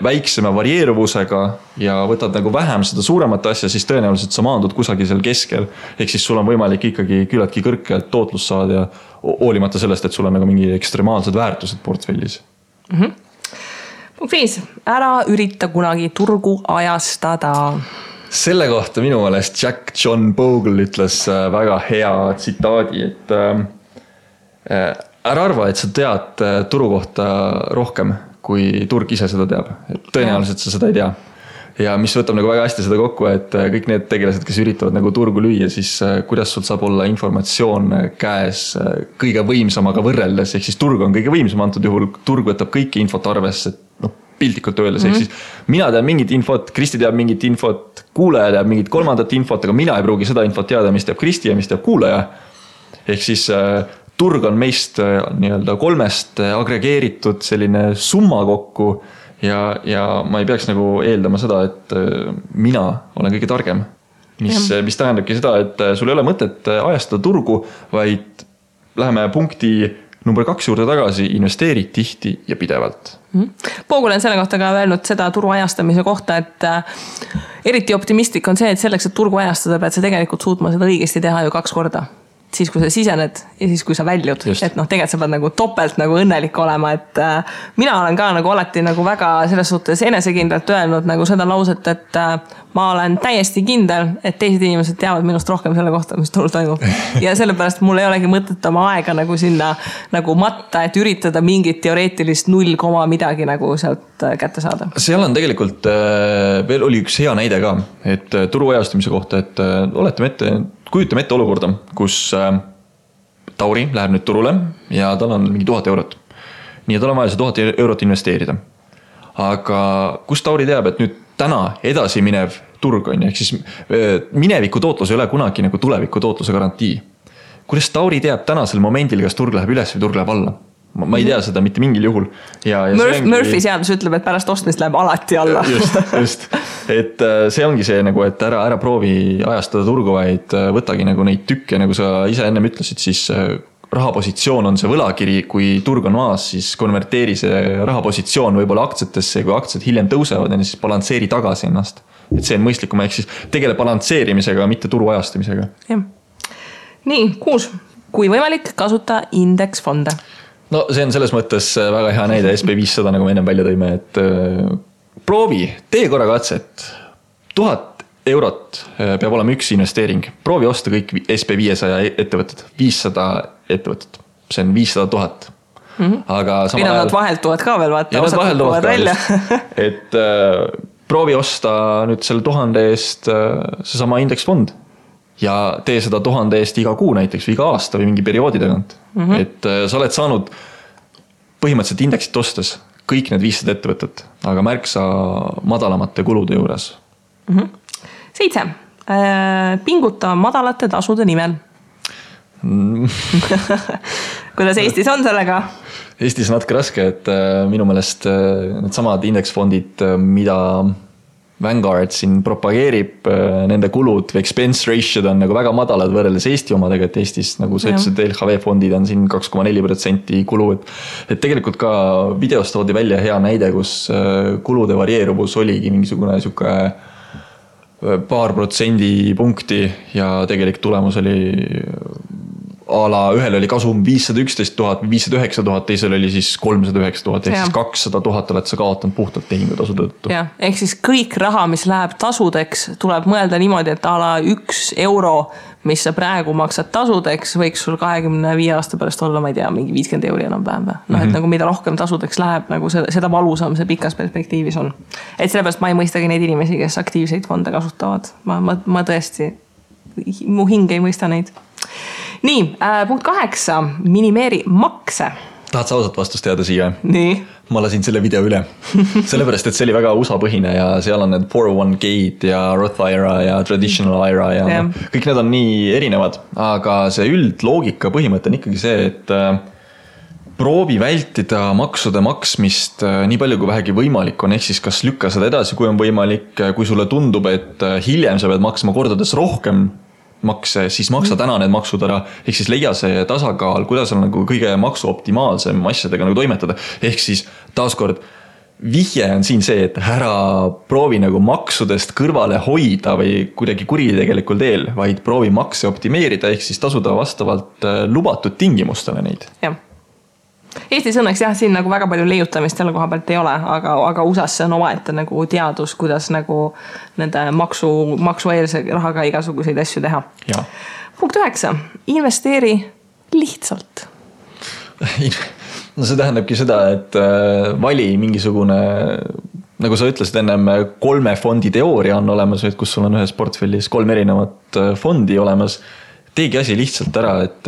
väiksema varieeruvusega ja võtad nagu vähem seda suuremat asja, siis tõenäoliselt sa maandud kusagil seal keskel. Ehk siis sul on võimalik ikkagi küllaltki kõrgelt tootlust saada ja hoolimata sellest, et sul on nagu mingi ekstremaalsed väärtused portfellis. Punkt 5. Ära ürita kunagi turgu ajastada. Selle kohta minu meelest Jack John Bogle ütles väga hea tsitaadi, et ära arva, et sa tead turu kohta rohkem, kui turg ise seda teab. Et tõenäoliselt sa seda ei tea. Ja mis võtab nagu väga hästi seda kokku, et kõik need tegelased, kes üritavad nagu turgu lüüa, siis kuidas sul saab olla informatsioon käes kõige võimsamaga võrreldes, ehk siis turg on kõige võimsam antud juhul, turg võtab kõiki infot arvesse, piltlikult öeldes, ehk siis mina tean mingit infot, Kristi teab mingit infot, kuulaja teab mingit kolmandat infot, aga mina ei pruugi seda infot teada, mis teab Kristi ja mis teab kuulaja. Ehk siis turg on meist nii-öelda 3 agregeeritud selline summa kokku ja ma ei peaks nagu eeldama seda, et mina olen kõige targem. Mis tähendabki seda, et sul ei ole mõtet ajastada turgu, vaid läheme punkti number 2 juurde tagasi, investeeri tihti ja pidevalt. Bogle on selle kohta ka öelnud seda turu ajastamise kohta, et eriti optimistlik on see, et selleks, et turgu ajastada, pead sa tegelikult suutma seda õigesti teha ju 2 korda. Siis, kui sa sisened ja siis, kui sa väljud. Just. Et tegelikult sa pead nagu topelt nagu õnnelik olema, et mina olen ka nagu alati nagu väga selles suhtes enesekindlalt öelnud nagu seda lauset, et ma olen täiesti kindel, et teised inimesed teavad minust rohkem selle kohta, mis turul toimub. Ja sellepärast mul ei olegi mõtet oma aega nagu sinna nagu matta, et üritada mingit teoreetilist 0, midagi nagu sealt kätte saada. Seal on tegelikult veel oli üks hea näide ka, et turu ajastamise kohta, et kujutame ette olukorda, kus Tauri läheb nüüd turule ja tal on mingi 1000 eurot. Nii et tal on vaja see 1000 eurot investeerida. Aga kus Tauri teab, et nüüd täna edasi minev turg on, ehk siis mineviku tootlus ei ole kunagi nagu tuleviku tootluse garantii. Kuidas Tauri teab tänasel momendil, kas turg läheb üles või turg läheb alla? Ma ei tea seda mitte mingil juhul. Murphy seadus ütleb, et pärast ostmist läheb alati alla. Just. Et see ongi see, nagu, et ära proovi ajastada turgu, vaid võtagi nagu neid tükke, nagu sa ise ennem ütlesid, siis rahapositsioon on see võlakiri, kui turg on maas, siis konverteeri see rahapositsioon võib-olla aktsiatesse, kui aktsiad hiljem tõusevad, siis balansseeri tagasi ennast. Et see on mõistlikum, ehk siis tegele balansseerimisega, mitte turu ajastamisega. Ja. Nii, 6. Kui võimalik, kasuta indeksfonde. No see on selles mõttes väga hea näide SP500, nagu me ennem välja tõime, et proovi, tee korra katset. 1000 eurot peab olema üks investeering. Proovi osta kõik SP500 ettevõtted, 500 ettevõtted. See on 500 000. Aga samal ajal... vahelt tuvad ka veel, vaata, osad tuvad välja. Et proovi osta nüüd selle 1000 eest see sama indeksfond. Ja tee seda 1000 eest iga kuu näiteks või iga aasta või mingi perioodi tagant. Et sa oled saanud põhimõtteliselt indeksit ostes kõik need 500 ettevõtet, aga märksa madalamate kulude juures. 7. Pinguta madalate tasude nimel. Kuidas Eestis on sellega? Eestis on natuke raske, et minu meelest need samad indeksfondid, mida Vanguard siin propageerib, nende kulud või expense ratio on nagu väga madalad võrreldes Eesti omadega, et Eestis nagu sa ütlesid, LHV fondid on siin 2,4% kulu, et tegelikult ka videost toodi välja hea näide, kus kulude varieeruvus oligi mingisugune siuke paar protsendipunkti ja tegelik tulemus oli ühel oli kasum 511 000, 509 000, teisel oli siis 309 000, ehk siis 200 000 oled sa kaotanud puhtalt tehingutasude tõttu. Ja, ehk siis kõik raha, mis läheb tasudeks, tuleb mõelda niimoodi, et 1 euro, mis sa praegu maksad tasudeks, võiks sul 25 aasta pärast olla, ma ei tea, mingi 50 euri enam päeva. Et nagu mida rohkem tasudeks läheb, nagu seda valusam see pikas perspektiivis on. Et sellepärast ma ei mõistagi neid inimesi, kes aktiivseid fonde kasutavad. Ma tõesti, mu hing ei mõista neid. Nii, punkt 8. Minimeeri makse. Tahad sa ausalt vastust teada siia? Nii. Ma lasin selle video üle. Sellepärast, et see oli väga USA-põhine ja seal on need 401k ja Roth IRA ja Traditional IRA ja kõik need on nii erinevad. Aga see üldloogika põhimõte on ikkagi see, et proovi vältida maksude maksmist nii palju kui vähegi võimalik on, ehk siis kas lükka seda edasi, kui on võimalik, kui sulle tundub, et hiljem sa pead maksma kordades rohkem makse, siis maksa täna need maksud ära, ehk siis leia see tasakaal, kuidas on nagu kõige maksu optimaalsem asjadega nagu toimetada, ehk siis taaskord vihje on siin see, et ära proovi nagu maksudest kõrvale hoida või kuidagi kuritegelikul teel, vaid proovi makse optimeerida, ehk siis tasuda vastavalt lubatud tingimustele neid. Jah. Eestis õnneks jah, siin nagu väga palju leiutamist selle koha pealt ei ole, aga USAs see on omaette nagu teadus, kuidas nagu nende maksueelse rahaga igasuguseid asju teha. Ja. Punkt 9. Investeeri lihtsalt. No see tähendabki seda, et vali mingisugune, nagu sa ütlesid ennem, 3 fondi teooria on olemas, kus sul on ühes portfellis 3 erinevat fondi olemas. Teegi asi lihtsalt ära, et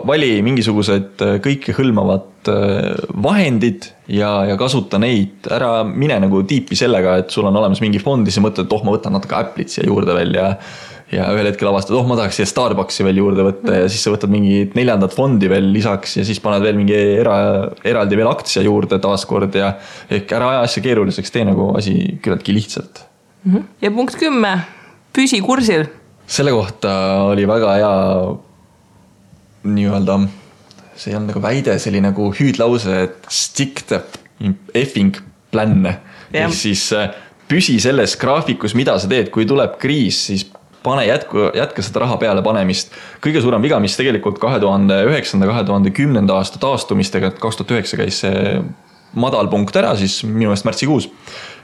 vali mingisugused kõike hõlmavad vahendid ja kasuta neid. Ära mine nagu tiipi sellega, et sul on olemas mingi fond ja sa mõtled, et ma võtan natuke Apple'it siia juurde veel ja ühel hetkel avastad, ma tahaks siia Starbucksi veel juurde võtta ja siis sa võtad mingi 4. fondi veel lisaks ja siis paned veel mingi eraldi veel aktsia juurde taaskord ja ehk ära aja asja keeruliseks, tee nagu asi küllaltki lihtsalt. Ja punkt 10, püsi kursil. Selle kohta oli väga hea nii-öelda, see on nagu väide, see oli nagu hüüdlause, et stick the effing plan. Ehk siis püsi selles graafikus, mida sa teed, kui tuleb kriis, siis pane jätka seda raha peale panemist. Kõige suurem viga, mis tegelikult 2009-2010 aasta taastumistega, 2009 käis see madal punkt ära, siis minu eest märtsikuus.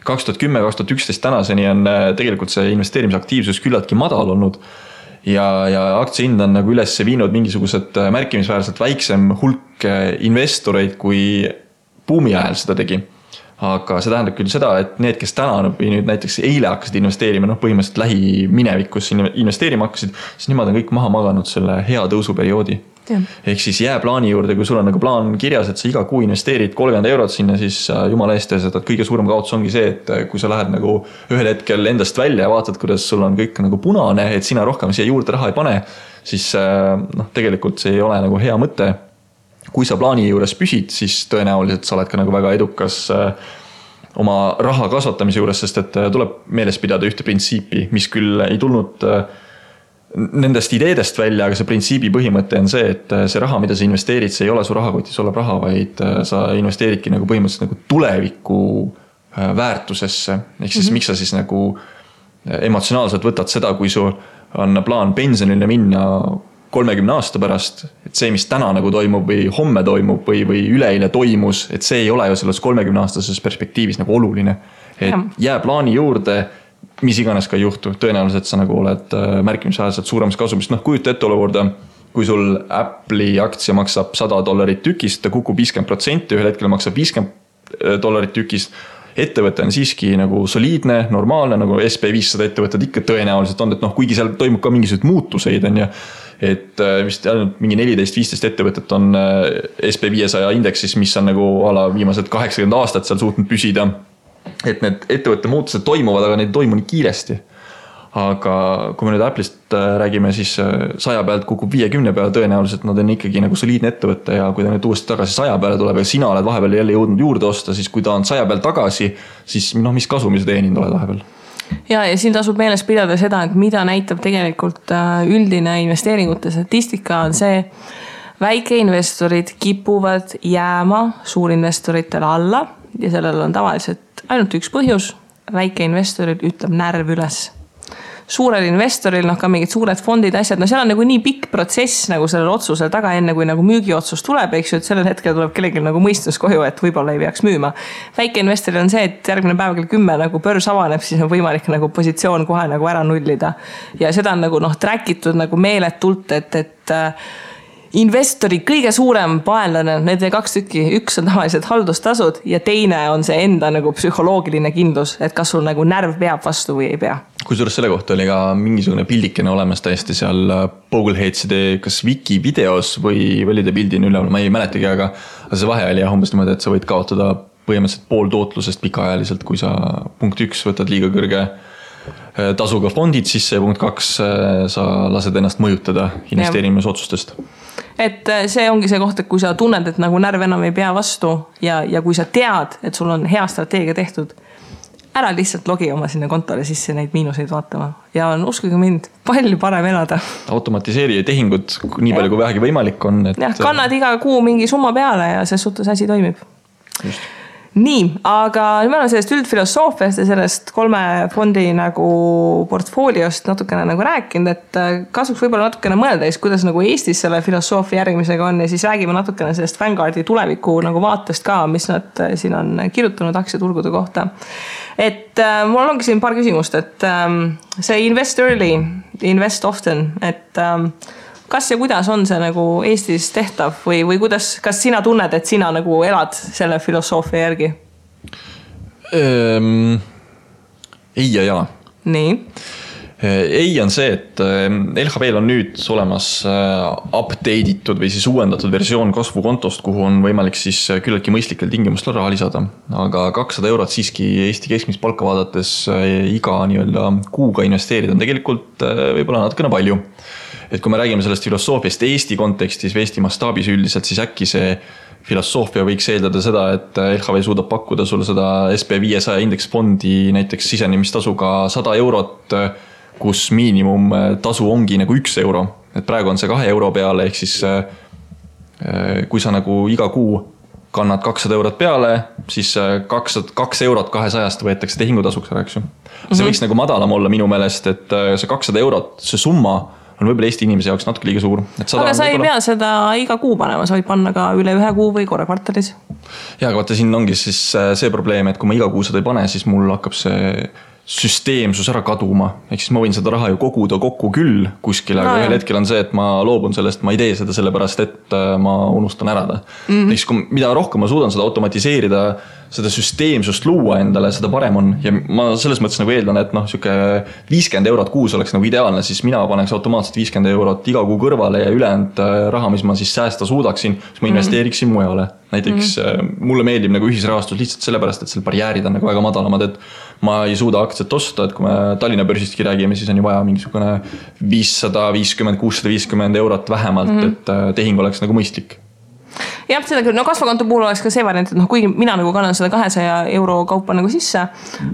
2010-2011 tänaseni on tegelikult see investeerimisaktiivsus küllaltki madal olnud ja aktsiahind on nagu üles viinud mingisugused märkimisväärselt väiksem hulk investoreid, kui buumi ajal seda tegi. Aga see tähendab küll seda, et need, kes täna või nüüd näiteks eile hakkasid investeerima, põhimõtteliselt lähiminevikus investeerima hakkasid, siis nemad on kõik maha maganud selle hea tõusuperioodi. Ehk siis jää plaani juurde, kui sul on nagu plaan kirjas, et sa iga kuu investeerid 30 eurot sinna, siis jumala eest tees, et kõige suurem kaotus ongi see, et kui sa lähed nagu ühel hetkel endast välja ja vaatad, kuidas sul on kõik nagu punane, et sina rohkem siia juurde raha ei pane, siis tegelikult see ei ole nagu hea mõte. Kui sa plaani juures püsid, siis tõenäoliselt sa oled ka nagu väga edukas oma raha kasvatamise juures, sest et tuleb meeles pidada ühte printsiipi, mis küll ei tulnud nendest ideedest välja, aga see printsiibi põhimõte on see, et see raha, mida sa investeerid, see ei ole su rahakotis olev raha, vaid sa investeeridki nagu põhimõtteliselt nagu tuleviku väärtusesse. Ehk siis miks sa siis nagu emotsionaalselt võtad seda, kui sul on plaan pensionile minna 30 aasta pärast, et see, mis täna nagu toimub või homme toimub või üleeile toimus, et see ei ole ju selles 30 aastases perspektiivis nagu oluline. Et jää plaani juurde, mis iganes ka ei juhtu, tõenäoliselt sa nagu oled märkimisväärselt suuremas kasumist. Kujuta ette olukorda, kui sul Apple'i aktsia maksab $100 tükist, ta kukub 50%, ühel hetkel maksab $50 tükist. Ettevõte on siiski nagu soliidne, normaalne, nagu SP500 ettevõtted ikka tõenäoliselt on, et kuigi seal toimub ka mingisugused muutuseid on ja et vist ainult mingi 14-15 ettevõtet on SP500 indeksis, mis on nagu ala viimased 80 aastat seal suutnud püsida. Et need ettevõtte muutused toimuvad, aga neid toimu nii kiiresti. Aga kui me nüüd Apple'ist räägime, siis 100 pealt kukub 50 peale, tõenäoliselt nad on ikkagi nagu soliidne ettevõte ja kui ta nüüd uuesti tagasi 100 peale tuleb ja sina oled vahepeal jälle jõudnud juurde osta, siis kui ta on 100 peal tagasi, siis mis kasumi sa teeninud oled vahepeal? Ja siin tasub meeles pidada seda, et mida näitab tegelikult üldine investeeringute statistika on see, väikeinvestorid kipuvad jääma suurinvestoritele alla ja sellel on tavaliselt ainult üks põhjus, väikeinvestorid ütleb närv üles. Suurel investoril, ka mingid suured fondid, asjad, seal on nagu nii pikk protsess nagu sellel otsusel taga enne, kui nagu müügiotsus tuleb, eks ju, et sellel hetkel tuleb kellelgi nagu mõistus koju, et võib-olla ei peaks müüma. Väike investoril on see, et järgmine päev kell 10 nagu börs avaneb, siis on võimalik nagu positsioon kohe nagu ära nullida. Ja seda on nagu trackitud nagu meeletult, et investori kõige suurem paenlane, need 2 tükki, üks on tavaliselt haldustasud ja teine on see enda nagu psühholoogiline kindlus, et kas sul nagu närv peab vastu või ei pea. Kusjuures selle kohta oli ka mingisugune pildikene olemas täiesti seal Bogleheadside kas wiki videos või oli ta pildin üleval, ma ei mäletagi, aga see vahe oli umbes niimoodi, et sa võid kaotada põhimõtteliselt pool tootlusest pikaajaliselt, kui sa punkt 1 võtad liiga kõrge tasuga fondid sisse ja punkt 2 sa lased ennast mõjutada investeerimisotsustest. Et see ongi see koht, et kui sa tunned, et nagu närv enam ei pea vastu ja kui sa tead, et sul on hea strateegia tehtud, ära lihtsalt logi oma sinna kontole sisse neid miinuseid vaatama ja on uskuge mind palju parem elada. Automatiseeri tehingud nii palju kui vähegi võimalik on. Jah, kannad iga kuu mingi summa peale ja see suhtes asi toimib. Just. Nii, aga nüüd me oleme sellest üldfilosoofiast ja sellest 3 fondi nagu portfooliost natukene nagu rääkinud, et kasuks võib-olla natukene mõelda, kuidas nagu Eestis selle filosoofia järgimisega on ja siis räägime natukene sellest Vanguardi tuleviku nagu vaatest ka, mis nad siin on kirjutanud aktsiaturgude kohta. Et mul ongi siin paar küsimust, et see invest early, invest often, et kas ja kuidas on see nagu Eestis tehtav või kuidas, kas sina tunned, et sina nagu elad selle filosoofia järgi? Ei ja jaa. Nii. Ei on see, et LHV-l on nüüd olemas update'itud või siis uuendatud versioon kasvukontost, kuhu on võimalik siis küllaltki mõistlikel tingimustel raha lisada. Aga 200 eurot siiski Eesti keskmist palka vaadates iga nii-öelda kuuga investeerida on tegelikult võib-olla natukene palju. Et kui me räägime sellest filosoofiast Eesti kontekstis või Eesti mastaabis üldiselt, siis äkki see filosoofia võiks eeldada seda, et LHV suudab pakkuda sulle seda SP500 indeksfondi näiteks sisenemistasuga 100 eurot, kus miinimum tasu ongi nagu 1 euro. Et praegu on see 2 euro peale, ehk siis kui sa nagu iga kuu kannad 200 eurot peale, siis 2 eurot 200 võetakse tehingutasuks ära, eks ju. See võiks nagu madalam olla minu meelest, et see 200 eurot, see summa on võib-olla Eesti inimese jaoks natuke liiga suur. Aga sa ei pea seda iga kuu panema, sa võid panna ka üle 1 kuu või korra kvartalis. Ja, aga vaata, siin ongi siis see probleem, et kui ma iga kuu seda ei pane, siis mul hakkab see süsteemsus ära kaduma. Ehk siis ma võin seda raha ju koguda kokku küll kuskile, aga ühel hetkel on see, et ma loobun sellest, ma ei tee seda sellepärast, et ma unustan ära ta. Ehk siis mida rohkem ma suudan seda automatiseerida, seda süsteemsust luua endale, seda parem on. Ja ma selles mõttes nagu eeldan, et siuke 50 eurot kuus oleks nagu ideaalne, siis mina paneks automaatselt 50 eurot iga kuu kõrvale ja ülejäänud raha, mis ma siis säästa suudaksin, siis ma investeeriksin mujale. Näiteks mulle meeldib nagu ühisrahastus lihtsalt sellepärast, et selle barjäärid on nagu väga madalamad, et ma ei suuda aktsiat osta, et kui me Tallinna börsistki räägime, siis on ju vaja mingisugune 550, 650 eurot vähemalt, et tehing oleks nagu mõistlik. Jah, seda küll, kasvukonto puhul oleks ka see variant, et kuigi mina nagu kannan seda 200 euro kaupa nagu sisse,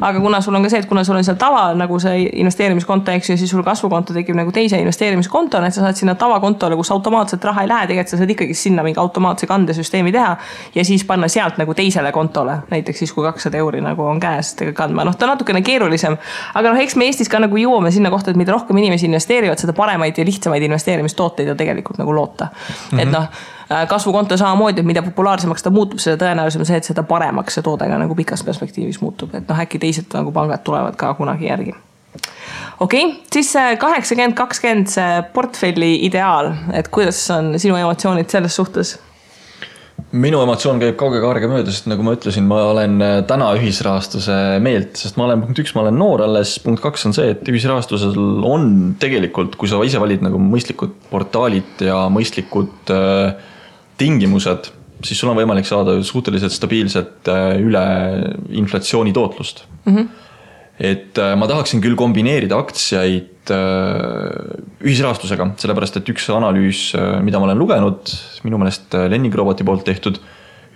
aga kuna sul on ka see, et kuna sul on seal tava nagu see investeerimiskonto, eks ju, siis sul kasvukonto tekib nagu teise investeerimiskonto, et sa saad sinna tavakontole, kus automaatselt raha ei lähe, tegelikult sa saad ikkagi sinna mingi automaatse kandesüsteemi teha ja siis panna sealt nagu teisele kontole, näiteks siis kui 200 euri nagu on käes kandma. Ta on natukene keerulisem, aga eks me Eestis ka nagu jõuame sinna kohta, et mida rohkem inimesi investeerivad, seda paremaid ja lihtsamaid investeerimistooteid on tegelikult nagu loota. Et kasvukonto samamoodi, et mida populaarsemaks ta muutub, seda tõenäolisem see, et seda paremaks see toodega nagu pikas perspektiivis muutub. Et äkki teised nagu pangad tulevad ka kunagi järgi. Okei, siis 80-20 see portfelli ideaal, et kuidas on sinu emotsioonid selles suhtes? Minu emotsioon käib kauge kaarega mööda, sest nagu ma ütlesin, ma olen täna ühisrahastuse meelt, sest ma olen punkt 1, ma olen noor alles, punkt 2 on see, et ühisrahastusel on tegelikult, kui sa ise valid nagu mõistlikud portaalid ja mõistlikud tingimused, siis sul on võimalik saada suhteliselt stabiilset üle inflatsiooni tootlust. Et ma tahaksin küll kombineerida aktsiaid ühisrahastusega, sellepärast et üks analüüs, mida ma olen lugenud, minu meelest Lenning Roboti poolt tehtud,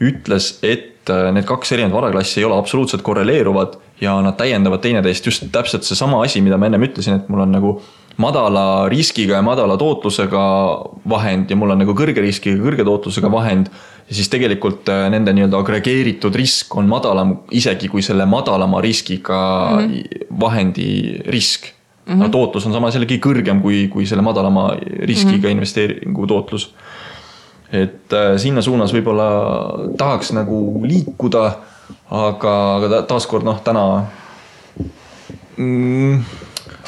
ütles, et need 2 erinevad varaklassi ei ole absoluutselt korreleeruvad ja nad täiendavad teineteist just täpselt see sama asi, mida ma ennem ütlesin, et mul on nagu madala riskiga ja madala tootlusega vahend ja mul on nagu kõrge riskiga ja kõrge tootlusega vahend ja siis tegelikult nende nii-öelda agregeeritud risk on madalam isegi kui selle madalama riskiga vahendi risk. Tootlus on samas jällegi kõrgem kui selle madalama riskiga investeeringu tootlus. Et sinna suunas võib-olla tahaks nagu liikuda, aga taaskord täna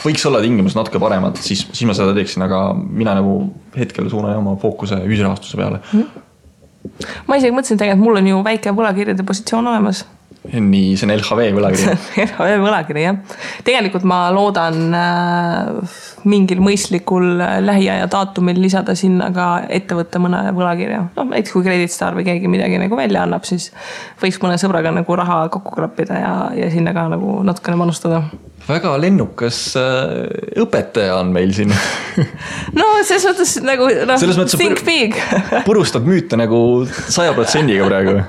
võiks olla tingimus natuke paremad, siis ma seda teeksin, aga mina nagu hetkel suunan oma fookuse ühisrahastuse peale. Ma isegi mõtlesin tegelikult, mul on ju väike võlakirjade positsioon olemas. Nii, see on LHV võlakiri. LHV võlakiri, jah. Tegelikult ma loodan mingil mõistlikul lähiaja daatumil lisada sinna ka ettevõtte mõne võlakirja. Näiteks kui Creditstar või keegi midagi nagu välja annab, siis võiks mõne sõbraga nagu raha kokku klappida ja sinna ka nagu natukene manustada. Väga lennukas õpetaja on meil siin. No, selles mõttes nagu think big. Purustad müüte nagu 100%-ga praegu.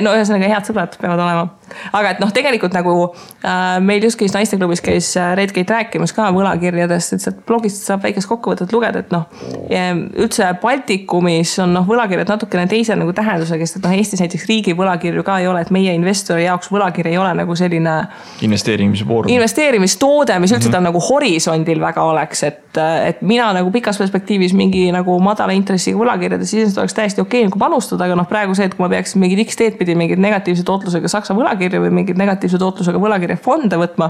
No ühesõnaga head sõbrad peavad olema. aga et noh, tegelikult nagu meil just käis naisteklubis käis Redgate rääkimas ka võlakirjadest, et sealt blogist saab väikest kokkuvõtet lugeda, et noh, üldse Baltikumis on noh, võlakirjad natukene teise nagu tähendusega, sest et noh, Eestis näiteks riigi võlakirju ka ei ole, et meie investori jaoks võlakiri ei ole nagu selline investeerimistoode, mis üldse ta nagu horisondil väga oleks, et mina nagu pikas perspektiivis mingi nagu madala intressiga võlakirjades siis oleks täiesti okei nagu panustada, aga noh, praegu see, et kui ma peaksin mingid X-teed pidi mingid negatiivse tootlusega Saksa võlakirja või mingid negatiivse tootlusega võlakirja fonde võtma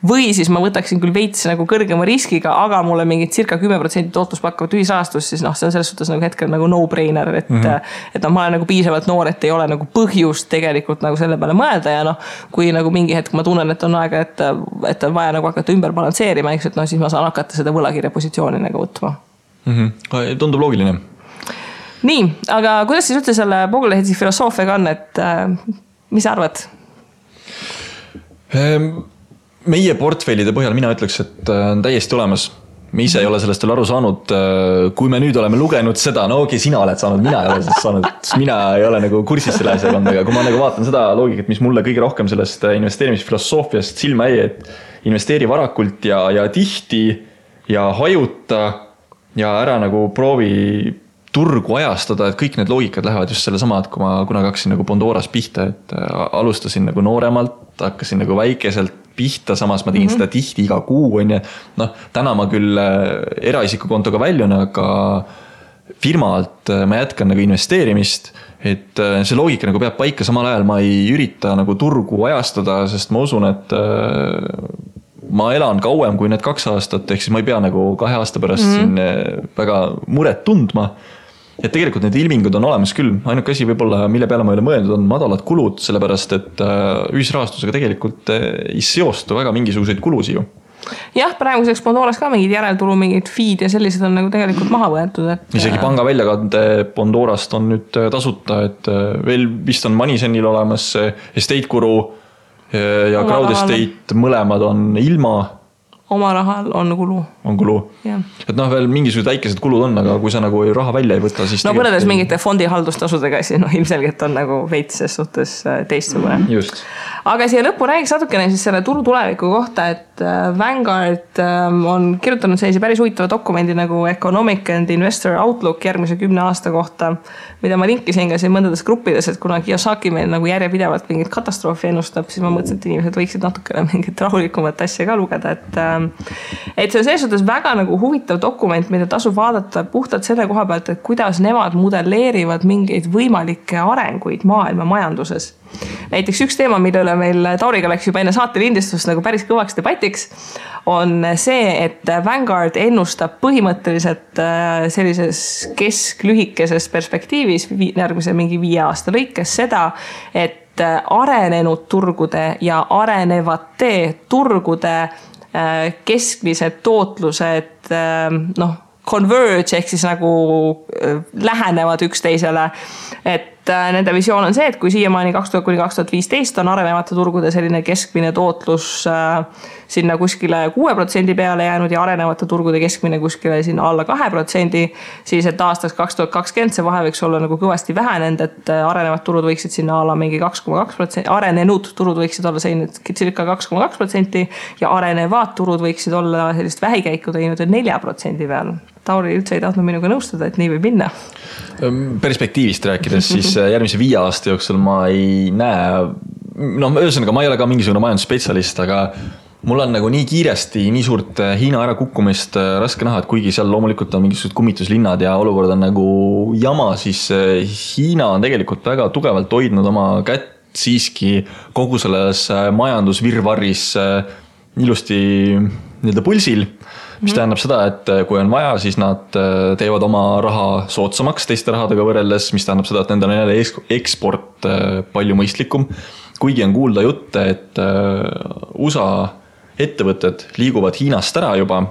või siis ma võtaksin küll veits nagu kõrgema riskiga, aga mulle mingid circa 10% tootlus pakkuvat ühisrahastust, siis noh, see on selles suhtes nagu hetkel nagu no-brainer, et noh, ma olen nagu piisavalt noor, et ei ole nagu põhjust tegelikult nagu selle peale mõelda ja noh, kui nagu mingi hetk ma tunnen, et on aega, et on vaja nagu hakata ümber balansseerima, eks, et noh, siis ma saan hakata seda võlakirja positsiooni nagu võtma. Tundub loogiline. Nii, aga kuidas siis üldse selle Vogelehedsi filosoofiaga on, et mis sa arvad? Meie portfellide põhjal mina ütleks, et on täiesti olemas. Me ise ei ole sellest veel aru saanud. Kui me nüüd oleme lugenud seda, no okei, sina oled saanud, mina ei ole sellest saanud. Mina ei ole nagu kursis selle asjaga, aga kui ma nagu vaatan seda loogikat, mis mulle kõige rohkem sellest investeerimisfilosoofiast silma jäi, et investeeri varakult ja tihti ja hajuta ja ära nagu proovi turgu ajastada, et kõik need loogikad lähevad just selle sama, et kui ma kunagi hakkasin nagu Bondoras pihta, et alustasin nagu nooremalt, hakkasin nagu väikeselt pihta, samas ma tegin seda tihti iga kuu, on ja noh, täna ma küll eraisikukontoga väljun, aga firmalt ma jätkan nagu investeerimist, et see loogika nagu peab paika, samal ajal ma ei ürita nagu turgu ajastada, sest ma usun, et ma elan kauem kui need 2 aastat, ehk siis ma ei pea nagu 2 aasta pärast siin väga muret tundma. Et tegelikult need ilmingud on olemas küll. Ainuke asi võib-olla, mille peale ma ei ole mõeldud, on madalad kulud, sellepärast et ühisrahastusega tegelikult ei seostu väga mingisuguseid kulusi ju. Jah, praeguseks Bondoras ka mingid järeltulu, mingid feed ja sellised on nagu tegelikult maha võetud. Et isegi panga väljakande Bondorast on nüüd tasuta, et veel vist on Moneyzenil olemas Estate Guru ja Crowd Estate mõlemad on ilma. Oma rahal on kulu. On kulu. Ja. Et noh, veel mingisugused väikesed kulud on, aga kui sa nagu raha välja ei võta, siis no võrreldes mingite fondihaldustasudega, siis noh, ilmselgelt on nagu veits ses suhtes teistsugune. Just. Aga siia lõppu räägiks natukene siis selle turu tuleviku kohta, et Vanguard on kirjutanud sellise päris huvitava dokumendi nagu Economic and Investor Outlook järgmise 10 aasta kohta, mida ma linkisin ka siin mõndades gruppides, et kuna Kiyosaki meil nagu järjepidevalt mingit katastroofi ennustab, siis ma mõtlesin, et inimesed võiksid natukene mingit rahulikumat asja ka lugeda, et see on selles suhtes väga nagu huvitav dokument, mida tasub vaadata puhtalt selle koha pealt, et kuidas nemad modelleerivad mingeid võimalikke arenguid maailma majanduses. Näiteks üks teema, mille üle meil Tauriga läks juba enne saate lindistust nagu päris kõvaks debatiks, on see, et Vanguard ennustab põhimõtteliselt sellises kesklühikeses perspektiivis järgmise mingi 5 aasta lõikes seda, et arenenud turgude ja arenevate turgude keskmised tootlused noh, converge ehk siis nagu lähenevad üksteisele, et nende visioon on see, et kui siiamaani 2000–2015 on arenevate turgude selline keskmine tootlus sinna kuskile 6% peale jäänud ja arenevate turgude keskmine kuskile sinna alla 2%, siis et aastaks 2020 see vahe võiks olla nagu kõvasti vähenenud, et arenevad turud võiksid sinna alla mingi 2,2%, arenenud turud võiksid olla selline circa 2,2% ja arenevad turud võiksid olla sellist vähikäiku teinud 4% peal. Tauri üldse ei tahtnud minuga nõustada, et nii võib minna. Perspektiivist rääkides, siis järgmise 5 aasta jooksul ma ei näe, no ühesõnaga ma ei ole ka mingisugune majandusspetsialist, aga mul on nagu nii kiiresti, nii suurt Hiina ära kukkumist raske näha, et kuigi seal loomulikult on mingisugused kummituslinnad ja olukord on nagu jama, siis Hiina on tegelikult väga tugevalt hoidnud oma kätt siiski kogu selles majandusvirvarris ilusti nii-öelda pulsil, mis tähendab seda, et kui on vaja, siis nad teevad oma raha soodsamaks teiste rahadega võrreldes, mis tähendab seda, et nendel on jälle eksport palju mõistlikum. Kuigi on kuulda jutte, et USA ettevõtted liiguvad Hiinast ära juba,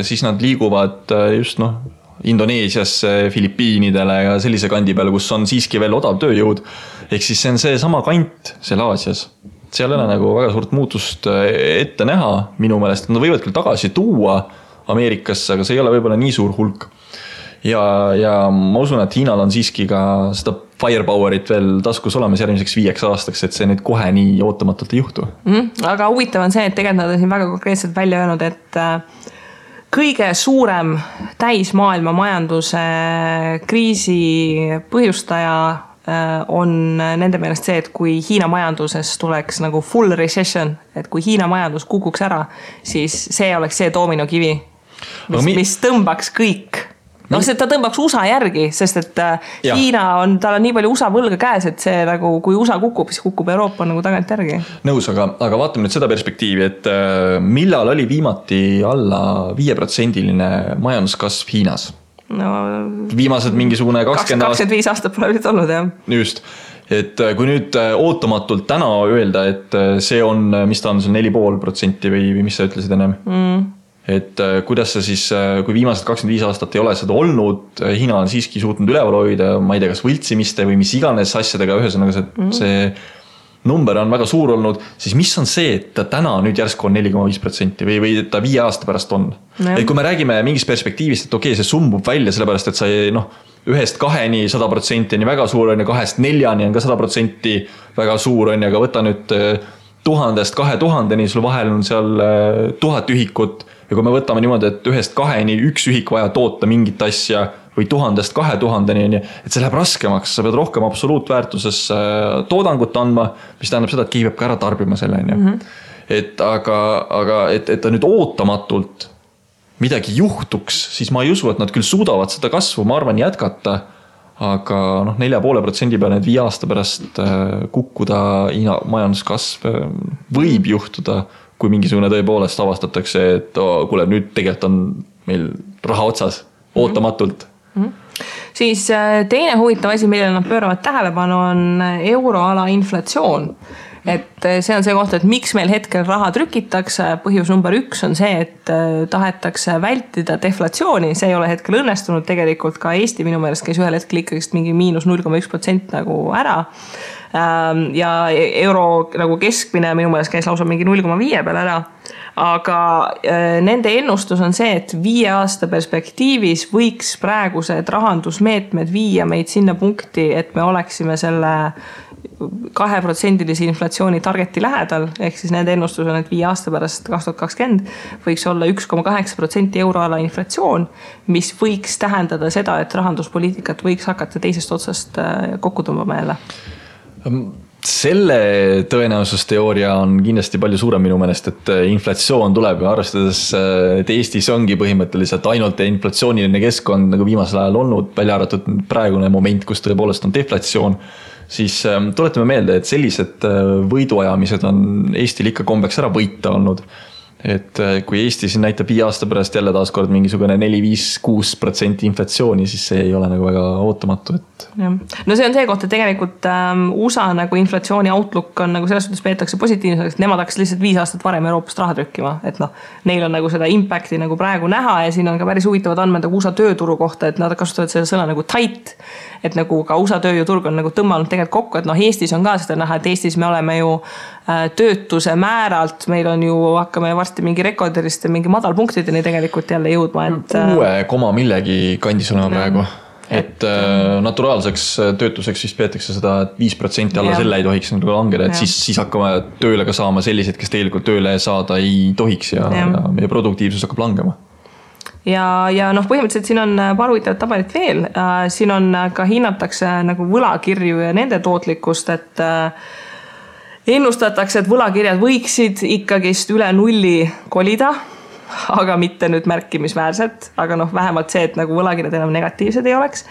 siis nad liiguvad just Indoneesiasse, Filipiinidele ja sellise kandi peale, kus on siiski veel odav tööjõud. Ehk siis see on see sama kant seal Aasias. Seal ei ole nagu väga suurt muutust ette näha minu meelest. Nad võivad küll tagasi tuua Ameerikasse, aga see ei ole võib-olla nii suur hulk. Ja ma usun, et Hiinal on siiski ka seda firepowerit veel taskus olemas järgmiseks 5 aastaks, et see nüüd kohe nii ootamatult ei juhtu. Aga huvitav on see, et tegelikult nad on siin väga konkreetselt välja öelnud, et kõige suurem täismaailma majanduse kriisi põhjustaja on nende meelest see, et kui Hiina majanduses tuleks nagu full recession, et kui Hiina majandus kukuks ära, siis see oleks see doominokivi, mis tõmbaks kõik. See ta tõmbaks USA järgi, sest et Hiina tal on nii palju USA võlga käes, et see nagu, kui USA kukub, siis kukub Euroopa nagu tagant järgi. Nõus, aga vaatame nüüd seda perspektiivi, et millal oli viimati alla 5%-line majanduskasv Hiinas? Viimased mingisugune 25 aastat pole nüüd olnud, jah. Just, et kui nüüd ootamatult täna öelda, et see on, mis ta on, see 4,5% või mis sa ütlesid ennem? Et kuidas see siis, kui viimased 25 aastat ei ole seda olnud, Hiina on siiski suutnud üleval hoida, ma ei tea, kas võltsimiste või mis iganes asjadega, ühesõnaga see number on väga suur olnud, siis mis on see, et ta täna nüüd järsku on 4,5% või ta 5 aasta pärast on? Et kui me räägime mingist perspektiivist, et okei, see sumbub välja, sellepärast, et sa 1-2-ni 100% on väga suur, 2-4-ni on ka 100% väga suur, aga võta nüüd 1000-2000-ni, sul vahel on seal 1000 ühikut. Ja kui me võtame niimoodi, et 1-2-ni üks ühik vaja toota mingit asja või 1000-2000-ni, et see läheb raskemaks, sa pead rohkem absoluutväärtuses toodangut andma, mis tähendab seda, et keegi peab ka ära tarbima selle. Et ta nüüd ootamatult midagi juhtuks, siis ma ei usu, et nad küll suudavad seda kasvu, ma arvan, jätkata, aga 4,5% peale nüüd 5 aasta pärast kukkuda majanduskasv võib juhtuda, kui mingisugune tõepoolest avastatakse, et kuule, nüüd tegelikult on meil raha otsas, ootamatult. Siis teine huvitav asi, millele nad pööravad tähelepanu, on euroala inflatsioon. Et see on see koht, et miks meil hetkel raha trükitakse. Põhjus number 1 on see, et tahetakse vältida deflatsiooni. See ei ole hetkel õnnestunud, tegelikult ka Eesti minu meelest käis ühel hetkel ikkagi mingi -0,1% nagu ära. Ja euro nagu keskmine minu meelest käis lausa mingi 0,5 peale ära. Aga nende ennustus on see, et 5 aasta perspektiivis võiks praegused rahandusmeetmed viia meid sinna punkti, et me oleksime selle 2% inflatsiooni targeti lähedal, ehk siis nende ennustus on, et 5 aasta pärast 2020 võiks olla 1,8% euroala inflatsioon, mis võiks tähendada seda, et rahanduspoliitikat võiks hakata teisest otsast kokku tõmbama jälle. Selle tõenäosusteooria on kindlasti palju suurem minu meelest, et inflatsioon tuleb ja arvestades, et Eestis ongi põhimõtteliselt ainult inflatsiooniline keskkond nagu viimasel ajal olnud, välja arvatud praegune moment, kus tõepoolest on deflatsioon, siis tuletame meelde, et sellised võiduajamised on Eestil ikka kombeks ära võita olnud. Et kui Eesti siin näitab 5 aasta pärast jälle taaskord mingisugune 4-5-6% inflatsiooni, siis see ei ole nagu väga ootamatu. No see on see koht, et tegelikult USA nagu inflatsiooni outlook on nagu selles suhtes peetakse positiivseks, et nemad hakkas lihtsalt 5 aastat varem Euroopast raha trükkima, et neil on nagu seda impacti nagu praegu näha ja siin on ka päris huvitavad andmed nagu USA tööturu kohta, et nad kasutavad selle sõna nagu tight, et nagu ka USA tööjõuturg on nagu tõmmanud tegelikult kokku, et Eestis on ka seda näha, et Eestis me oleme ju töötuse määralt, meil on ju, hakkame varsti mingi rekordiliste, mingi madalpunktideni tegelikult jälle jõudma. Et 6, millegi kandis olema praegu. Et naturaalseks töötuseks siis peetakse seda, et 5% alla selle ei tohiks langeda, et siis hakkame tööle ka saama sellised, kes tegelikult tööle saada ei tohiks ja meie produktiivsus hakkab langema. Ja põhimõtteliselt siin on paar huvitavat tabelit veel. Siin on ka hinnatakse nagu võlakirju ja nende tootlikkust, et ennustatakse, et võlakirjad võiksid ikkagist üle 0 kolida, aga mitte nüüd märkimisväärselt, aga vähemalt see, et nagu võlakirjad enam negatiivsed ei oleks.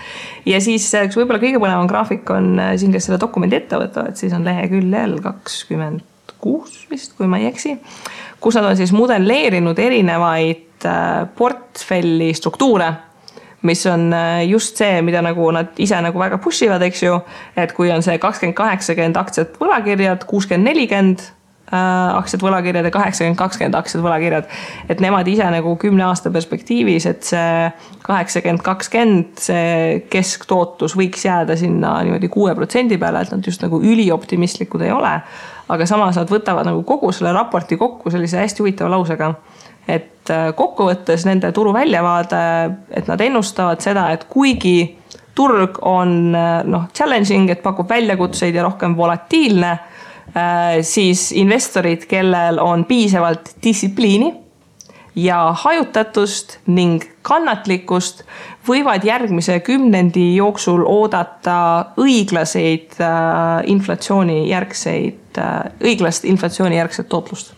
Ja siis üks võib-olla kõige põnevam graafik on siin, kes selle dokumendi ette võtavad, siis on leheküljel 26 vist, kui ma ei eksi, kus nad on siis modelleerinud erinevaid portfelli struktuure, mis on just see, mida nagu nad ise nagu väga pushivad, eks ju, et kui on see 20-80 aktsiat võlakirjad, 60-40 aktsiat võlakirjad ja 80-20 aktsiat võlakirjad, et nemad ise nagu 10 aasta perspektiivis, et see 80-20 see kesktootlus võiks jääda sinna niimoodi 6% peale, et nad just nagu ülioptimistlikud ei ole, aga samas nad võtavad nagu kogu selle raporti kokku sellise hästi huvitava lausega, et kokkuvõttes nende turu väljavaade, et nad ennustavad seda, et kuigi turg on challenging, et pakub väljakutseid ja rohkem volatiilne, siis investorid, kellel on piisavalt distsipliini ja hajutatust ning kannatlikkust, võivad järgmise 10 jooksul oodata õiglast inflatsioonijärgset tootlust.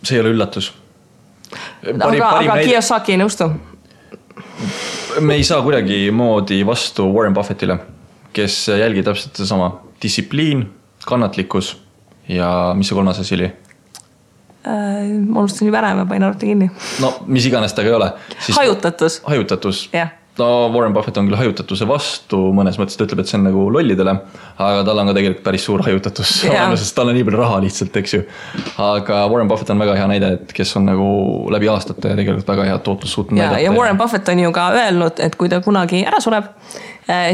See ei ole üllatus. Aga Kiyosaki ei nõustu. Me ei saa kuidagi moodi vastu Warren Buffettile, kes jälgib täpselt sama. Distsipliin, kannatlikkus ja mis see 3. asi oli? Ma unustasin juba ära, ma panin arvuti kinni. No, mis iganes ta ka ei ole. Hajutatus. Hajutatus. Yeah. No, Warren Buffett on küll hajutatuse vastu, mõnes mõttes ta ütleb, et see on nagu lollidele, aga tal on ka tegelikult päris suur hajutatus, sest tal on nii palju raha lihtsalt, eks ju. Aga Warren Buffett on väga hea näide, et kes on nagu läbi aastate tegelikult väga hea tootlus suutnud näidata. Ja Warren Buffett on ju ka öelnud, et kui ta kunagi ära sureb,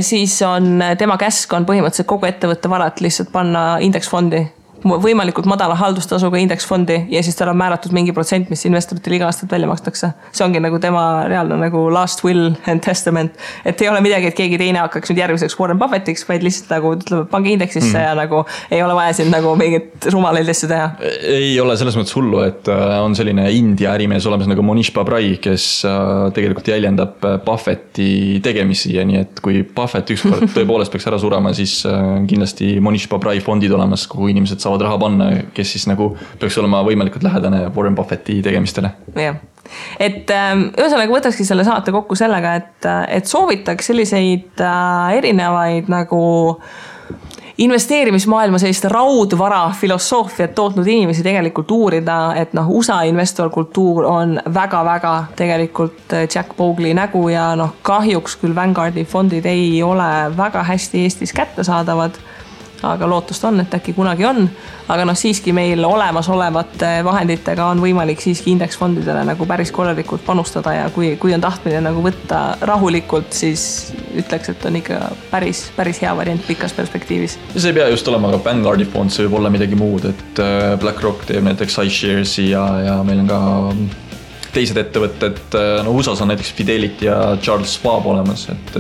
siis on tema käsk on põhimõtteliselt kogu ettevõtte varat lihtsalt panna indeksfondi, võimalikult madala haldustasuga indeksfondi ja siis tal on määratud mingi protsent, mis investoritele iga aastat välja makstakse. See ongi nagu tema reaalne nagu last will and testament, et ei ole midagi, et keegi teine hakkaks nüüd järgmiseks Warren Buffettiks, vaid lihtsalt nagu ütleb, pange indeksisse ja nagu ei ole vaja siin nagu mingit rumalaid asju teha. Ei ole selles mõttes hullu, et on selline India ärimees olemas nagu Monish Pabrai, kes tegelikult jäljendab Buffetti tegemisi ja nii, et kui Buffett ükskord tõepoolest peaks ära surema, siis kindlasti Monish Pabrai fondid olemas, kuhu inimesed saavad raha panna, kes siis nagu peaks olema võimalikult lähedane Warren Buffetti tegemistele. Jah. Et ühesõnaga võtakski selle saate kokku sellega, et soovitaks selliseid erinevaid nagu investeerimismaailma sellist raudvara filosoofiat tootnud inimesi tegelikult uurida, et USA investorkultuur on väga-väga tegelikult Jack Bogle nägu ja kahjuks küll Vanguardi fondid ei ole väga hästi Eestis kättesaadavad, aga lootust on, et äkki kunagi on, aga siiski meil olemasolevate vahenditega on võimalik siiski indeksfondidele nagu päris korralikult panustada ja kui on tahtmine nagu võtta rahulikult, siis ütleks, et on ikka päris hea variant pikas perspektiivis. See ei pea just olema ka Vanguardi fond, see võib olla midagi muud, et BlackRock teeb näiteks iShares'i ja meil on ka teised ettevõtted, USAs on näiteks Fidelity ja Charles Schwab olemas, et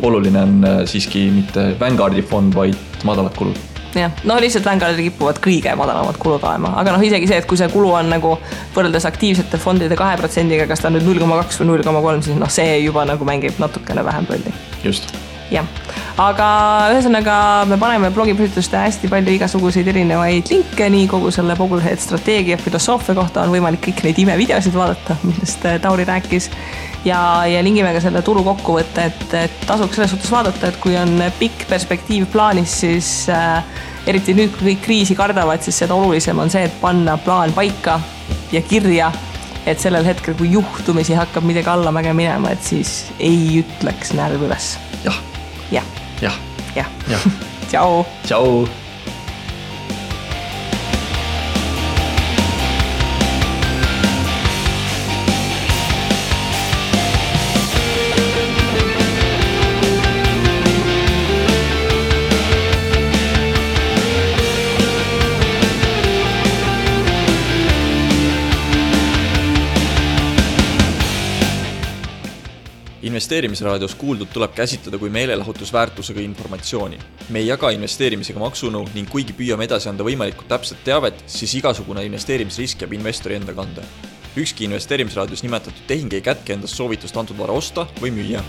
oluline on siiski mitte Vanguardi fond, vaid madalad kulud. Jah, lihtsalt Vanguardi kipuvad kõige madalamad kulud olema, aga isegi see, et kui see kulu on nagu võrreldes aktiivsete fondide 2%-ga, kas ta on nüüd 0,2 või 0,3, siis see juba nagu mängib natukene vähem rolli. Just. Jah, aga ühesõnaga me paneme blogiposituste hästi palju igasuguseid erinevaid linke, nii kogu selle Boglehead strateegia filosoofia kohta on võimalik kõik neid imevideosid vaadata, millest Tauri rääkis ja lingime ka selle turu kokkuvõtte, et tasuks selles suhtes vaadata, et kui on pikk perspektiiv plaanis, siis eriti nüüd, kui kõik kriisi kardavad, siis seda olulisem on see, et panna plaan paika ja kirja, et sellel hetkel, kui juhtumisi hakkab midagi allamäge minema, et siis ei ütleks närv üles. Jah. Tšau. Tšau. Investeerimisraadios kuuldud tuleb käsitleda kui meelelahutusväärtusega informatsiooni. Me ei jaga investeerimisega maksunõu ning kuigi püüame edasi anda võimalikult täpset teavet, siis igasugune investeerimisrisk jääb investori enda kanda. Ükski investeerimisraadios nimetatud tehing ei kätke endast soovitust antud vara osta või müüa.